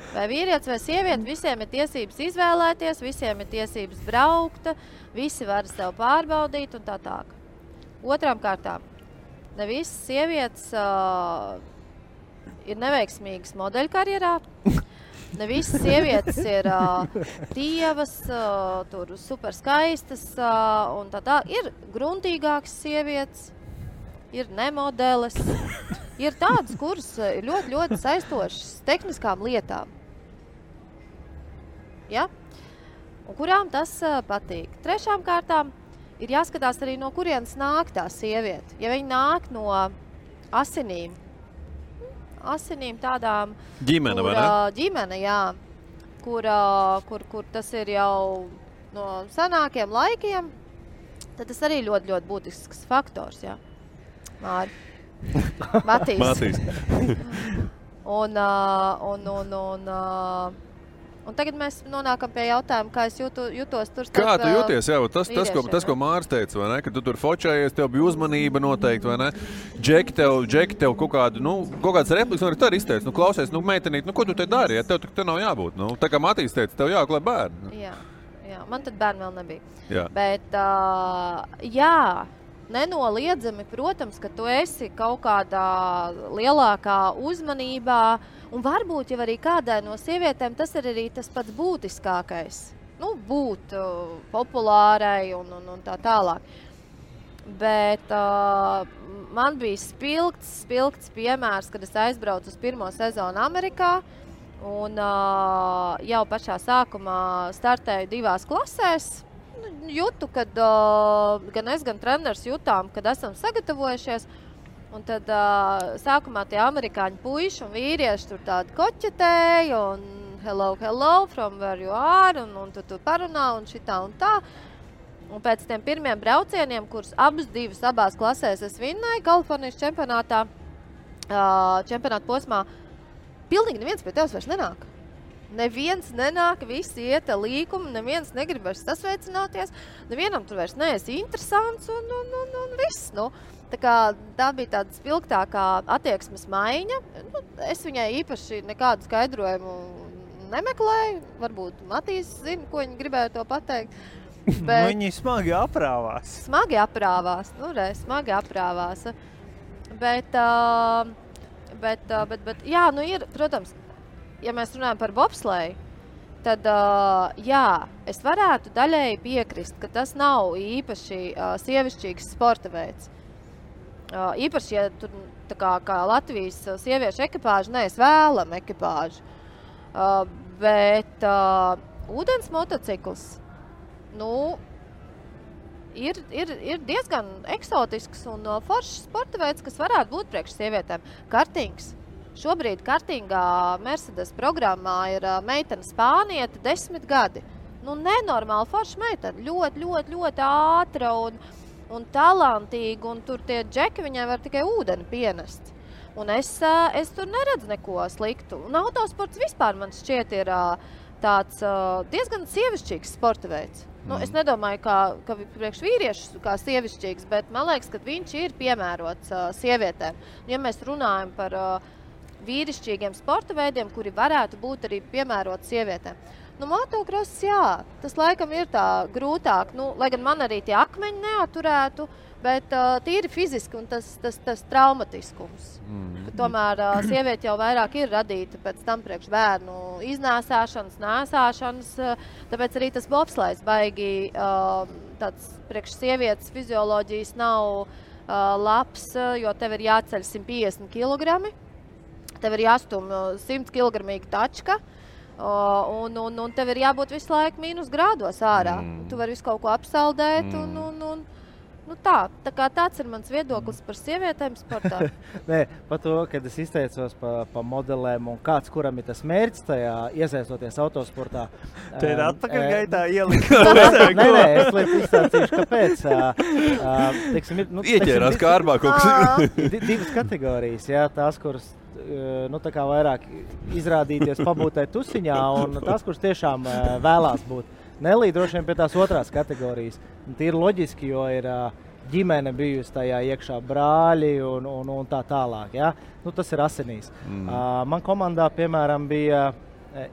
Vai vīrietis vai sieviete, visiem ir tiesības izvēlēties, visiem ir tiesības braukt, visi var sev pārbaudīt un tā tālāk. Otrām kārtām, ne visas sievietes ir neveiksmīgas modeļkarjerā, ne visas sievietes ir tievas, tur super skaistas un tā. Ir gruntīgākas sievietes, ir nemodeles, ir tādas, kuras ir ļoti, ļoti saistošas tehniskām lietām. Ja? Un kurām tas patīk. Trešām kārtām ir jāskatās arī, no kurienes nāk tā sieviete. Ja viņa nāk no asinīm tādām, ģimene, vai ne? Ģimene, jā, kur tas ir jau no senākiem laikiem, tad tas arī ļoti, ļoti būtisks faktors, jā. Māri. Matīs. Un tagad mēs nonākam pie jautājuma, kā es jutos tur. Kā tu jūties? Jā, tas, ko Māris teica, vai ne? Ka tu tur fočējies, tev bija uzmanība noteikti, vai ne? Džeki tev kaut kādas replikas, un arī tā izteica. Klausies, meitenīt, ko tu te dari? Ja tev nav jābūt. Tā kā Matīs teica, tev jāklē bērni. Jā, man tad bērni vēl nebija. Jā. Bet, nenoliedzami, protams, ka tu esi kaut kādā lielākā uzmanībā, un varbūt jau arī kādai no sievietēm tas ir arī tas pats būtiskākais. Būt populārai un tā tālāk. Bet man bija spilgts piemērs, kad es aizbraucu uz pirmo sezonu Amerikā, un jau pašā sākumā startēju 2 klasēs. Jūtu, kad gan es, gan treneris jutām, kad esam sagatavojušies. Un tad sākumā tie amerikāņu puiši un vīrieši tur tādi koķetēja un hello, from where you are, un tu parunā un šitā un tā. Un pēc tiem pirmiem braucieniem, kurus abās klasēs es vinnēju Kalifornijas čempionātā posmā, pilnīgi neviens pie tevis vairs nenāk. Neviens nenāk, visi iet līkumu, neviens negrib vairs sasveicināties, nevienam tur vairs neesi interesants un viss. Tā bija tāda spilgtākā attieksmes maiņa. Es viņai īpaši nekādu skaidrojumu nemeklēju. Varbūt Matīs zina, ko viņi gribēja to pateikt. Bet viņi smagi aprāvās. Smagi aprāvās. Bet jā, ir, protams, ja mēs runājam par bobsleju, tad es varētu daļēji piekrist, ka tas nav īpaši sievišķīgs sporta veids. Īpaši, ja tur kā Latvijas sieviešu ekipāžu, es vēlam ekipāžu. Bet ūdens motocikls, ir diezgan eksotisks un foršs sporta veids, kas varētu būt priekš sievietēm. Kartings. Šobrīd kartingā Mercedes programmā ir meitene spāniete 10 gadi. nenormāli forša meitene. Ļoti ātra un talantīga, un tur tie džeki viņai var tikai ūdeni pienest. Un es tur neredzu neko sliktu. Un autosports vispār man šķiet ir tāds diezgan sievišķīgs sporta veids. Es nedomāju, ka priekš vīriešus kā sievišķīgs, bet man liekas, ka viņš ir piemērots sievietēm. Ja mēs runājam par vīrišķīgiem sporta veidiem, kuri varētu būt arī piemēroti sievietēm. Motocross, jā, tas laikam ir tā grūtāk, lai gan man arī tie akmeņi neaturētu, bet tīri fiziski un tas traumatiskums. Tomēr sieviete jau vairāk ir radīta pēc tam priekš bērnu iznēsāšanas, nēsāšanas, tāpēc arī tas bobslaids baigi tāds priekš sievietes fizioloģijas nav labs, jo tev ir jāceļ 150 kg, tev ir jāstum 100 kg tačka, un tev ir jābūt visu laiku mīnus grādos ārā. Tu vari visu kaut ko apsaldēt tāds ir mans viedoklis par sievietēm sportā. Nē, par to, kad es izteicos pa modelēm un kāds, kuram ir tas mērķis tajā iesaistoties autosportā. Te ir atpakaļ gaitā ielikt. Nē, es lieku izstācīšu, kāpēc. Ieķērās kārbā kaut kas. Divas kategorijas, jā, tās, kuras tā kā vairāk izrādīties, pabūtai tusiņā, un tās, kuras tiešām vēlās būt. Nelī droši vien pie tās otrās kategorijas. Tīri loģiski, jo ir ģimene bijusi tajā iekšā brāļi un tā tālāk. Ja? Tas ir asinīs. Man komandā, piemēram,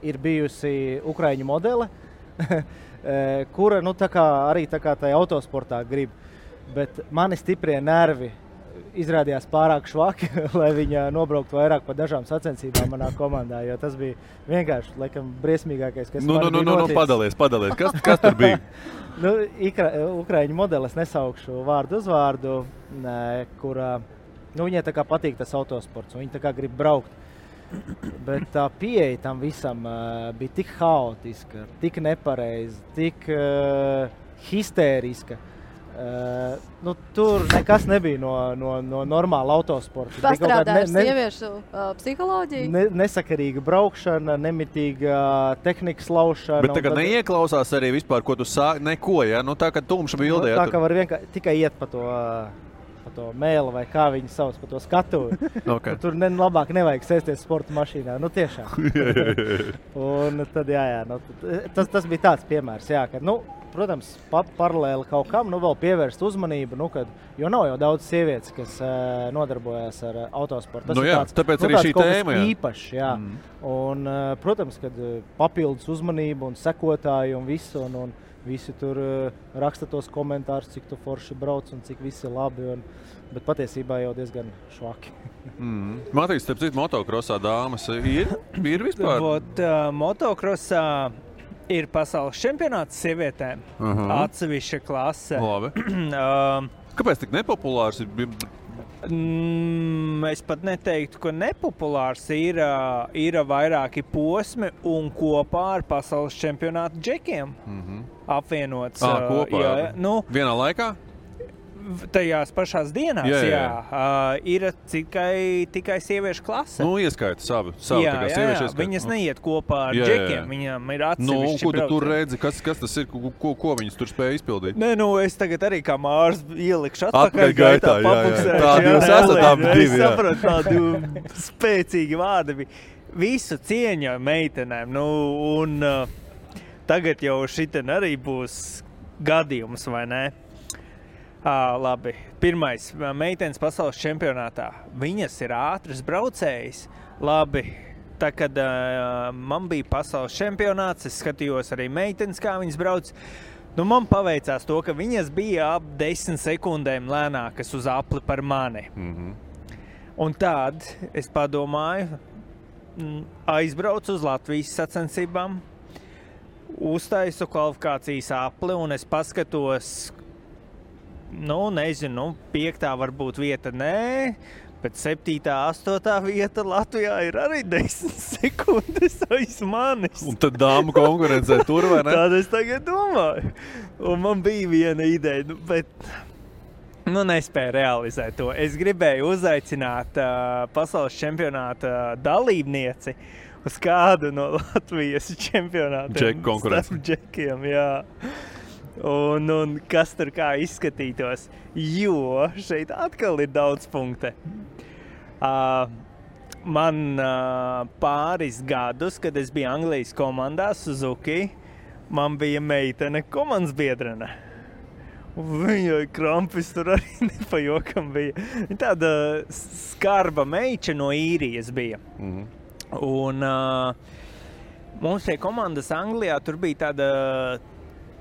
ir bijusi ukraiņu modele, kura arī tajā autosportā grib. Bet mani stiprie nervi izrādījās pārāk švaki, lai viņa nobrauktu vairāk pa dažām sacensībām manā komandā, jo tas bija vienkārši, laikam, briesmīgākais, kas man bija noticis. Padalies. Kas tur bija? Ukraiņu modeles nesaukšu vārdu uzvārdu, kura, viņai tā kā patīk tas autosports, un viņa tā kā grib braukt. Bet tā pieeja tam visam bija tik haotiska, tik nepareiza, tik histēriska. Tur nekas nebija no normāla autosporta. Pastrādājuši sieviešu psiholoģiju? Nesakarīga braukšana, nemitīga tehnikas laušana. Bet tagad neieklausās arī vispār, ko tu sāki, neko, ja? Tā kā tumša bildē. Tā kā var vienkārši tikai iet pa to mēlu vai kā viņi sauc, pa to skatuvi. Okay. Tur labāk nevajag sēsties sporta mašīnā. Tiešām. Un tad, tas bija tāds piemērs, jā, ka, protams, paralēli kaut kam, vēl pievērst uzmanību, jo nav jau daudz sievietes, kas nodarbojas ar autosportu. Tas tāpēc arī šī tēma, īpašs, jā. Un, protams, kad papildus uzmanību un sekotāju un visu, un visi tur raksta tos komentārus, cik tu forši brauc un cik visi labi, bet patiesībā jau diezgan švaki. Matīs, starp citu, motocrossā dāmas ir vispār? Motocrossā ir pasaules čempionāts sievietēm, atsevišķa klase. Labi. Kāpēc tik nepopulārs ir? Es pat neteiktu, ka nepopulārs ir vairāki posmi un kopā ar pasaules čempionātu džekiem apvienots. Kopā? Vienā laikā? Tajās pašās dienās, jā. Ir tikai sieviešu klase. Ieskaita savu jā, viņas neiet kopā ar džekiem, viņam ir atsevišķi ko tu tur redzi, kas tas ir, ko viņas tur spēja izpildīt? Es tagad arī kā Mārs ielikšu atpakaļ gaitā, papuksēšu. Tādi jūs esat abi divi, jā. Es sapratu, tādi spēcīgi vārdi. Visu cieņu meitenēm, un tagad jau šiten arī būs gadījums, vai ne? Labi. Pirmais, meitenes pasaules čempionātā. Viņas ir ātras braucējas. Labi, tā kad man bija pasaules čempionāts, es skatījos arī meitenes, kā viņas brauc. Man paveicās to, ka viņas bija ap 10 sekundēm lēnākas uz apli par mani. Un tad es padomāju, aizbraucu uz Latvijas sacensībām, uztaisu kvalifikācijas apli un es paskatos, nezinu, 5. varbūt vieta nē, bet 7., 8. vieta Latvijā ir arī 10 sekundes aiz manis. Un tad dāmu konkurencē tur, vai ne? Tāda es tagad domāju. Un man bija viena ideja, bet nespēju realizēt to. Es gribēju uzaicināt pasaules čempionāta dalībnieci, uz kādu no Latvijas čempionātiem. Džeku konkurence. Starp džekiem, jā. Un kas tur kā izskatītos, jo šeit atkal ir daudz punkte. Man pāris gadus, kad es biju Anglijas komandā Suzuki, man bija meitene komandas biedrene. Viņa krampis tur arī nepajokam bija. Viņa tāda skarba meiča no Īrijas bija. Un mums pie komandas Anglijā tur bija tāda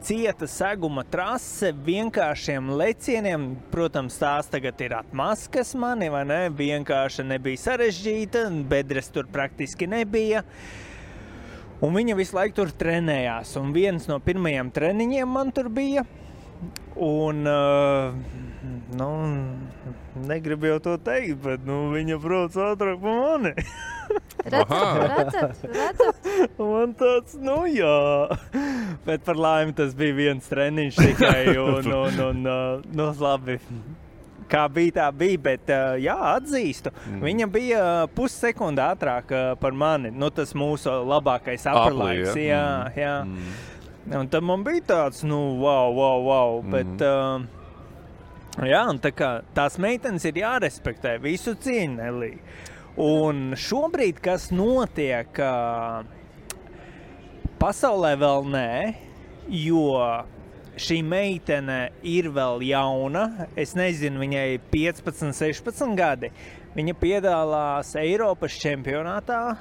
cieta seguma trase vienkāršiem lecieniem. Protams, tās tagad ir atmaskas mani, vai ne? Vienkārši nebija sarežģīta, bedres tur praktiski nebija. Un viņa visu laiku tur trenējās. Un viens no pirmajiem treniņiem man tur bija. Un, negribu jau to teikt, bet viņa brauc ātrāk pa mani. Redzat. Man tāds, jā. Bet par laimi tas bija viens treniņš tikai un labi. Kā bija, tā bija, bet jā, atzīstu. Viņa bija pussekunda ātrāk par mani. Tas mūsu labākais upperlaiks. Jā. Un tad man bija tāds, wow. Bet, jā, un tā kā tās meitenes ir jārespektē, visu cieņu, Nelī. Un šobrīd, kas notiek, pasaulē vēl nē, jo šī meitene ir vēl jauna. Es nezinu, viņai 15, 16 gadi. Viņa piedalās Eiropas čempionātā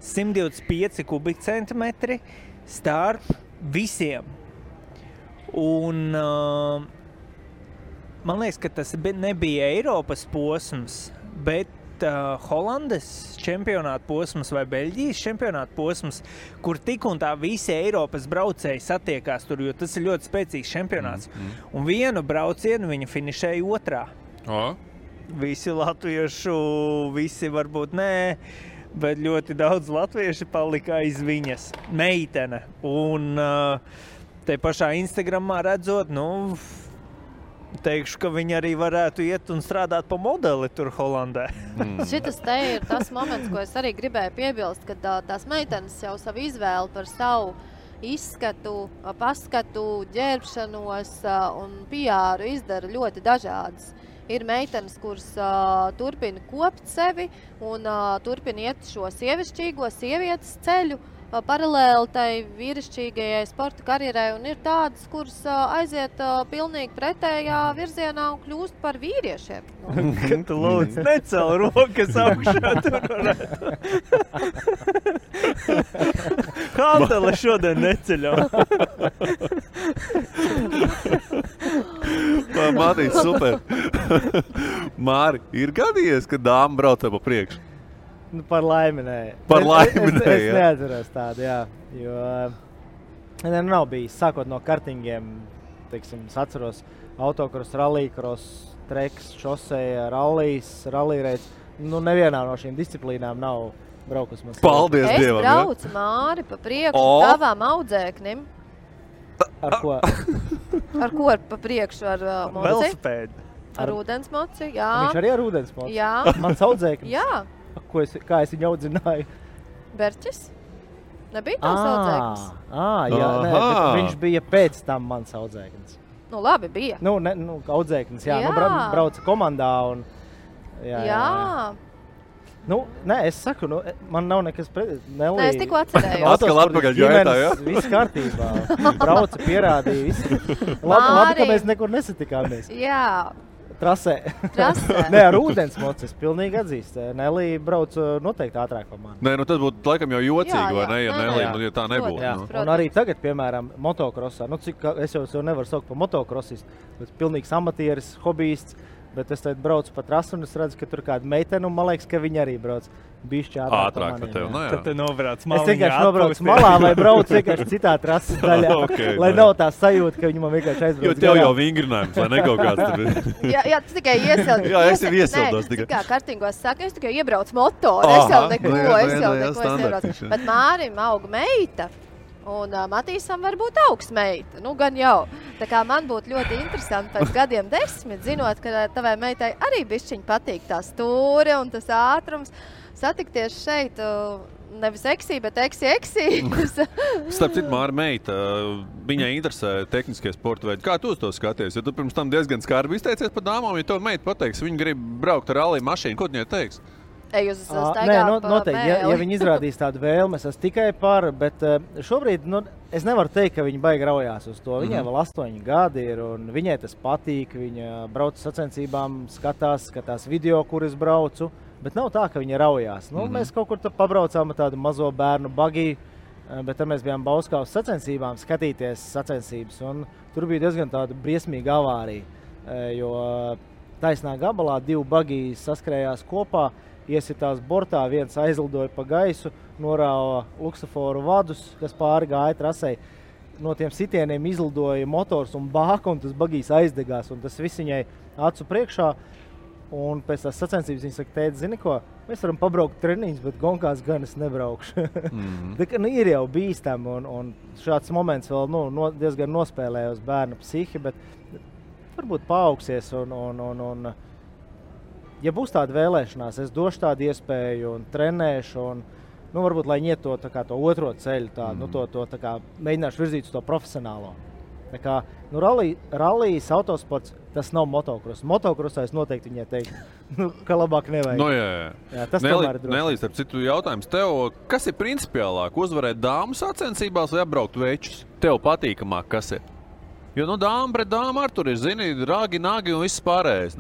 125 kubikcentimetri starp visiem. Un man liekas, ka tas nebija Eiropas posms, bet Holandes čempionāta posms vai Beļģijas čempionāta posms, kur tik un tā visi Eiropas braucēji satiekās tur, jo tas ir ļoti spēcīgs čempionāts. Un vienu braucienu viņa finišēja otrā. Visi latviešu, visi varbūt nē, bet ļoti daudz latvieši palika aiz viņas meitene. Un te pašā Instagramā redzot, teikšu, ka viņi arī varētu iet un strādāt pa modeli tur Holandē. Šitas te ir tas moments, ko es arī gribēju piebilst, kad tās meitenes jau savu izvēli par savu izskatu, paskatu, ģērbšanos un PR izdara ļoti dažādas. Ir meitenes, kuras turpina kopt sevi un turpina iet šo sievišķīgo sievietes ceļu paralēli tai vīrišķīgajai sporta karjerai, un ir tādas, kuras aiziet pilnīgi pretējā virzienā un kļūst par vīriešiem. Kad tu lūdzu necel rokas augšā, tur varētu. Hantele šodien neceļam. Māri, super. Māri, ir gadījies, ka dāma braucē pa priekšu? Par laimi nē. Par laimi nē, Es neatceros tādu, jā. Jo nav bijis, sākot no kartingiem, teiksim, es atceros autokros, rallycross, treks, šoseja, rallyraids. Nevienā no šīm disciplīnām nav braukus man. Paldies Dievam! Es braucu, Māri, pa priekšu tavām audzēknim. Ar ko? Ar ko pa priekšu? Ar moci? Velosipēdu. Ar ūdensmoci, jā. Viņš arī ar ūdensmoci? Jā. Mans audzēknis? Jā. Kā es viņu audzināju? Berķis? Nebija tavs audzēknis? Jā, nē, bet viņš bija pēc tam mans audzēknis. Labi, bija. Audzēknis, jā. Brauca komandā un... Jā. Nē, es saku, man nav nekas pret... Nē, es tikko atcerējos. Atkal atpakaļ gaitā, jā? Viss kārtībā. Brauca, pierādīja, viss. Labi, ka mēs nekur nesatikāmies. Jā. Trasē. Nē, ar ūdensmoci es pilnīgi atzīst. Nelī brauc noteikti ātrāk par mani. Nē, tas būtu laikam jau jocīgi, vai ne, ja Nelī, ja tā nebūtu. Jā. Un arī tagad, piemēram, motokrosā, es jau nevaru saukt par motokrosistu, bet pilnīgs amatieris, hobijists, bet es tagad braucu pa trasu un es redzu, ka tur kāda meitene, un man liekas, ka viņa arī brauc bišķi ātrāk par maniem. Tev, Tad tu nobrauc maliņā. Es vienkārši nobraucu malā vai braucu vienkārši citā trases daļā, lai nav tā sajūta, ka viņi man vienkārši aizbrauc. Jo tev jau vingrinājums, vai ne kaut kāds tur? Jā, tu tikai iesildi. Jā, es jau iesildos tikai. Kā kartingos saka, es tikai iebraucu motoru, es jau neko iebraucu. Bet Mārim aug meita. Un Matīsam var būt augsts meita. Gan jau. Tā kā man būtu ļoti interesanti pēc gadiem 10, zinot, ka tavai meitai arī bišķiņ patīk tā stūre un tas ātrums. Satikties šeit, nevis eksī, bet eksī. Starp citu, Māra meita, viņai interesē tehniskie sporta veidi. Kā tu uz to skaties? Ja tu pirms tam diezgan skarbi izteicies par dāmām, ja to meita pateiks, viņa grib braukt ar rallija mašīnu, ko viņai teiks? Noteikti, ja viņi izrādīs tādu vēlmi, es tikai par, bet šobrīd es nevaru teikt, ka viņi baigi raujās uz to. Viņai vēl 8 gadi ir, un viņai tas patīk, viņa brauc sacensībām, skatās video, kur es braucu, bet nav tā, ka viņa raujās. Mēs kaut kur pabraucām ar tādu mazo bērnu bagiju, bet tad mēs bijām Bauskavas sacensībām skatīties sacensības, un tur bija diezgan tāda briesmīga avārija, jo taisnā gabalā 2 bagiji saskrējās kopā, iesitās bortā, viens aizlidoja pa gaisu, norāva luksaforu vadus, kas pāri gāja trasei. No tiem sitieniem izlidoja motors un bāka, un tas bagijs aizdegās, un tas viss viņai acu priekšā. Un pēc tās sacensības viņa saka, tēti, zini ko, mēs varam pabraukt treniņus, bet gonkās gan es nebraukšu. Ir jau bīstam, un šāds moments vēl diezgan nospēlēja uz bērna psihi, bet varbūt paaugsies un ja būs tāda vēlēšanās, es došu tādu iespēju un trenēšu, un varbūt, lai iet to otro ceļu, mēģināšu virzīt uz to profesionālo. Tā kā, rallijas autosports, tas nav motocross. Motocrossā es noteikti viņai teiktu, ka labāk nevajag. Jā, tas tomēr ir droši. Nelīs, ar citu jautājums tev, kas ir principiālāk, uzvarēt dāmu sacensībās vai apbraukt večus? Tev patīkamāk, kas ir? Jo, dāma pret dāmu ar tur ir, zini, rāgi, nāgi un viss pārējais,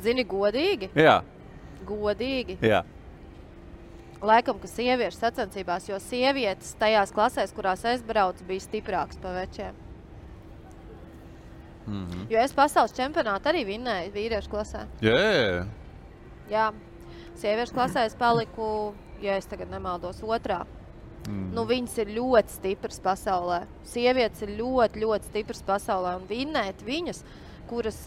Zini, godīgi? Jā. Godīgi? Jā. Laikam, ka sieviešu sacensībās, jo sievietes tajās klasēs, kurās es braucu, bija stiprāks pa večiem. Jo es pasaules čempionātu arī vinnēju vīriešu klasē. Jā. Sieviešu klasē es paliku, ja es tagad nemaldos, 2. Viņas ir ļoti stipras pasaulē. Sievietes ir ļoti, ļoti stipras pasaulē, un vinnēt viņas, kuras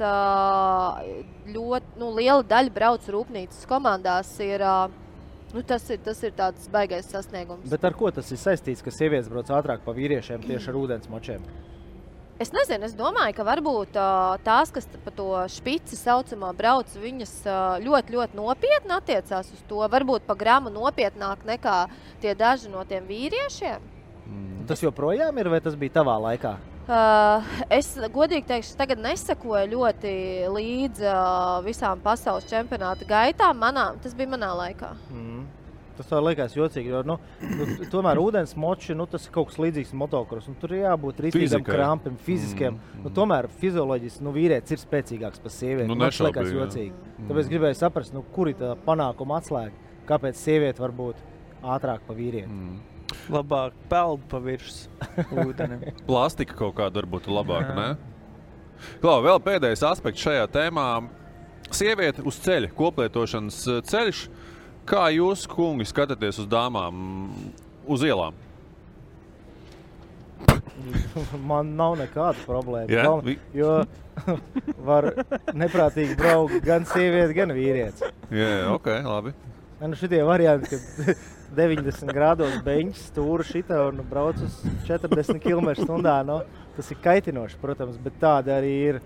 ļoti liela daļa brauc rūpnīcas komandās, tas ir tāds baigais sasniegums. Bet ar ko tas ir saistīts, ka sievietes brauc ātrāk pa vīriešiem tieši ar ūdensmočiem? Es nezinu, es domāju, ka varbūt tās, kas pa to špici saucamā brauc, viņas ļoti, ļoti nopietni attiecās uz to. Varbūt pa gramu nopietnāk nekā tie daži no tiem vīriešiem. Tas joprojām ir, vai tas bija tavā laikā? Es godīgi teikšu, tagad nesakoju ļoti līdz visām pasaules čempionāta gaitām. Tas bija manā laikā. Tas tā liekas jocīgi, jo tomēr ūdensmoči, tas ir kaut kas līdzīgs motocross. Tur ir jābūt rītīgam krampim, fiziskiem. Tomēr fizioloģiski vīrietis ir spēcīgāks par sievieti. Tas liekas jocīgi. Tāpēc gribēju saprast, kur ir tā panākuma atslēga. Kāpēc sieviete var būt ātrāk par vīrieti? Labāk peld pa virs ūdenim. Plastika kaut kāda varbūt labāka, ne? Klau, vēl pēdējais aspekts šajā tēmā. Sieviete uz ceļa, koplietošanas ceļš. Kā jūs, kungi, skatāties uz dāmām uz ielām? Man nav nekāda problēma, jo var neprātīgi braukt gan sieviete, gan vīrietis. Ok, labi. Šitie varianti, kad 90 grādos beņķis stūra šita un brauc uz 40 km/h, tas ir kaitinoši, protams, bet tāda arī ir.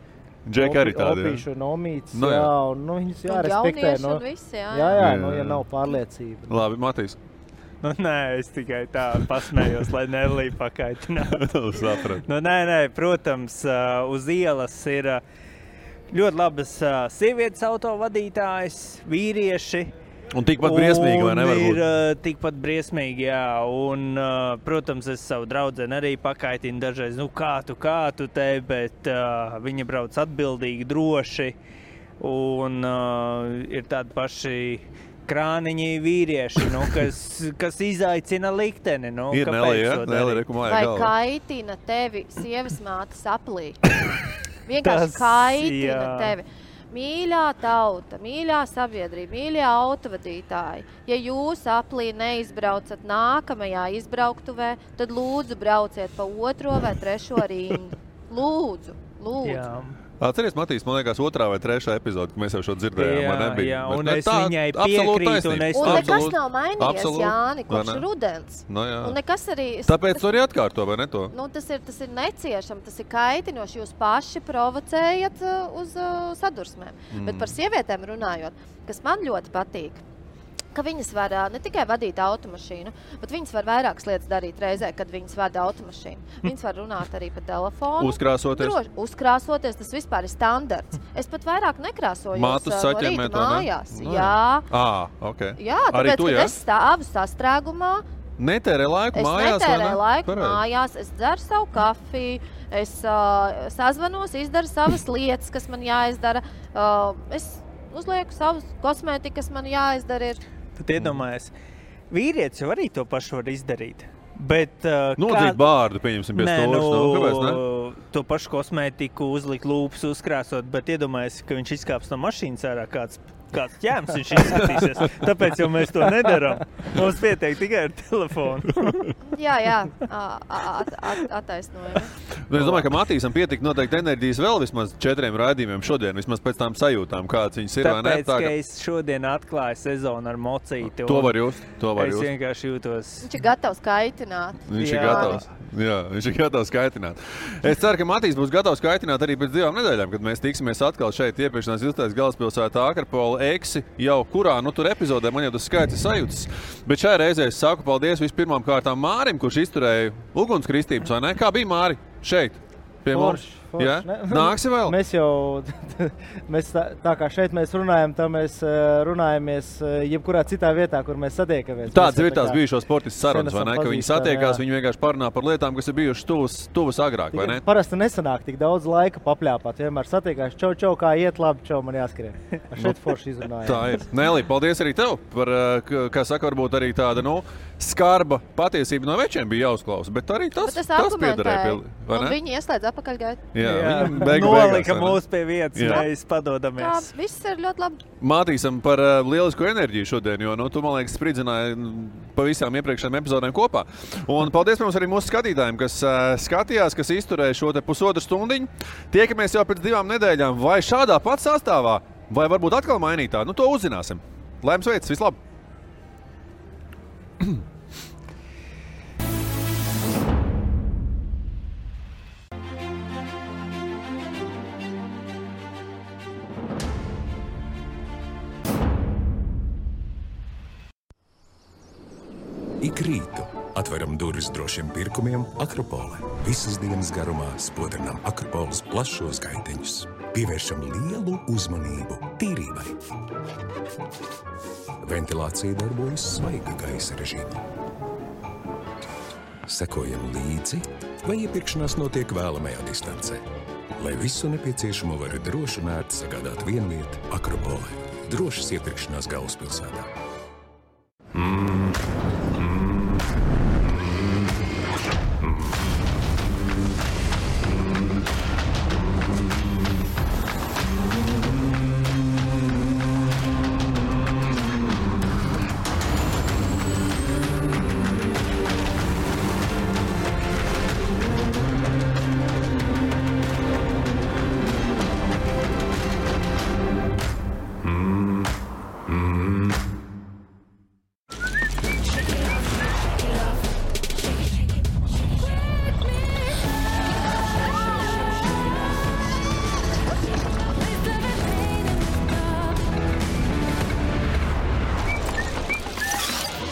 Džeka arī tāda, opīšu un omītes, un viņus jārespektē. Un visi, ja nav pārliecība. Labi, Matīs. Nē, es tikai tā pasmējos, lai Nelī pakaitinātu. Nē, protams, uz ielas ir ļoti labas sievietes autovadītājas, vīrieši. Un tikpat briesmīgi, vai nevar būt? Ir tikpat briesmīgi, jā. Un, protams, es savu draudzeni arī pakaitinu dažreiz, kā tu te, bet viņa brauc atbildīgi, droši. Un ir tādi paši krāniņi vīrieši, kas izaicina likteni. Ir Nelī, rekumāja galva. Vai kaitina tevi sievas mātes aplī? Vienkārši kaitina tevi. Mīļā tauta, mīļā sabiedrība, mīļā autovadītāji, ja jūs aplī neizbraucat nākamajā izbrauktuvē, tad lūdzu brauciet pa 2. vai 3. rindu. Lūdzu. Jā. Atceries, Matīs, man liekas, 2. vai 3. epizode, kad mēs jau šo dzirdējām, nebija. Jā, un es viņai piekrītu. Un nekas nav mainījies, Jāni, kopš rudens. Un nekas arī... Tāpēc to arī atkārto, vai ne to? Tas ir neciešam, tas ir kaitinoši. Jūs paši provocējat uz sadursmēm. Bet par sievietēm runājot, kas man ļoti patīk, ka viņas var ne tikai vadīt automašīnu, bet viņas var vairākas lietas darīt reizē, kad viņas vada automašīnu. Viņas var runāt arī pa telefonu. Uzkrāsoties? Uzkrāsoties, tas vispār ir standarts. Es pat vairāk nekrāsojos Mātus no saķemēt, rīta mājās. Ne? Jā. Okay. Jā, tāpēc, kad es stāvu sastrēgumā, netērē laiku mājās, es netērēju laiku mājās, es dzeru savu kafiju, es sazvanos, izdaru savas lietas, kas man jāizdara. Es uzlieku savus kosmētiku, kas man jāizdara ir. Tad iedomājies, vīrietis jau arī to pašu var izdarīt. Bet, nodzīt bārdu, pieņemsim, pie stūras. Kāpēc, ne? To pašu kosmētiku, uzlikt lūpas, uzkrāsot, bet iedomājies, ka viņš izkāps no mašīnas ārā kāds ķēms viņš izskatīsies. Tāpēc jau mēs to nedaram. Mums pietiek tikai ar telefonu. Jā, attaisnojami. Es domāju, ka Matīsam pietika noteikti enerģijas vēl vismaz 4 raidījumiem šodien, vismaz pēc tām sajūtām, kāds viņas ir. Tāpēc, ka es šodien atklāju sezonu ar mocīti. To var just. Es vienkārši jūtos. Viņš ir gatavs kaitināt. Viņš ir gatavs kaitināt. Es ceru, ka Matīs būs gatavs kaitināt arī pēc 2 nedēļām, kad mēs tiksimies atkal šeit iepirkšanās izstādes galvaspilsētā Akrapola Eksi, jau kurā, tur epizodē man jau tas skaits ir sajūtas. Bet šajā reizē es saku paldies vispirmām kārtām Mārim, kurš izturēja ugunskristības, vai ne? Kā bija, Māri, šeit? Pie mums? Ja? Nāksi vēl? Mēs tā kā šeit mēs runājam, tā mēs runājamies jebkurā citā vietā, kur mēs satiekamies. Tāds ir tās bijušo sportistu sarunas, vai ne? Ka viņi satiekās, viņi vienkārši parunā par lietām, kas ir bijušas tuvas agrāk, vai ne? Parasti nesanāk tik daudz laika papļāpāt. Vienmēr satiekās, čau, kā iet labi, čau, man jāskrien. Šeit forši izrunājām. Tā ir. Nelī, paldies arī tev par, kā saka, varbūt arī tāda, skarba patiesība no večiem bija jāuzklausa, bet arī tas piederēja. Un viņi ieslēdz apakaļgaitu. Jā. Nolika mūs pie vietas, mēs padodamies. Jā, viss ir ļoti labi. Mātīsam par lielisku enerģiju šodien, jo tu, man liekas, spridzināji pa visām iepriekšējām epizodēm kopā. Un paldies mums arī mūsu skatītājiem, kas skatījās, kas izturēja šo te pusotru stundiņu. Tiekamies jau pēc 2 nedēļām, vai šādā pat sastāvā, vai varbūt atkal mainītā. To uzzināsim. Laimes veids, vislabāk! Ik rītu atveram durvis drošiem pirkumiem Akropole. Visas dienas garumā spodrinām Akropoles plašos gaiteņus. Pievēršam lielu uzmanību tīrībai. Ventilācija darbojas svaiga gaisa režīmā. Sekojam līdzi, vai iepirkšanās notiek vēlamajā distancē. Lai visu nepieciešamo var droši un ērti sagādāt vienviet Akropole. Drošas iepirkšanās galvaspilsētā.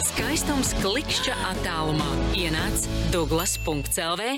Skaistums klikšķa attālumā. Ienāc Douglas.lv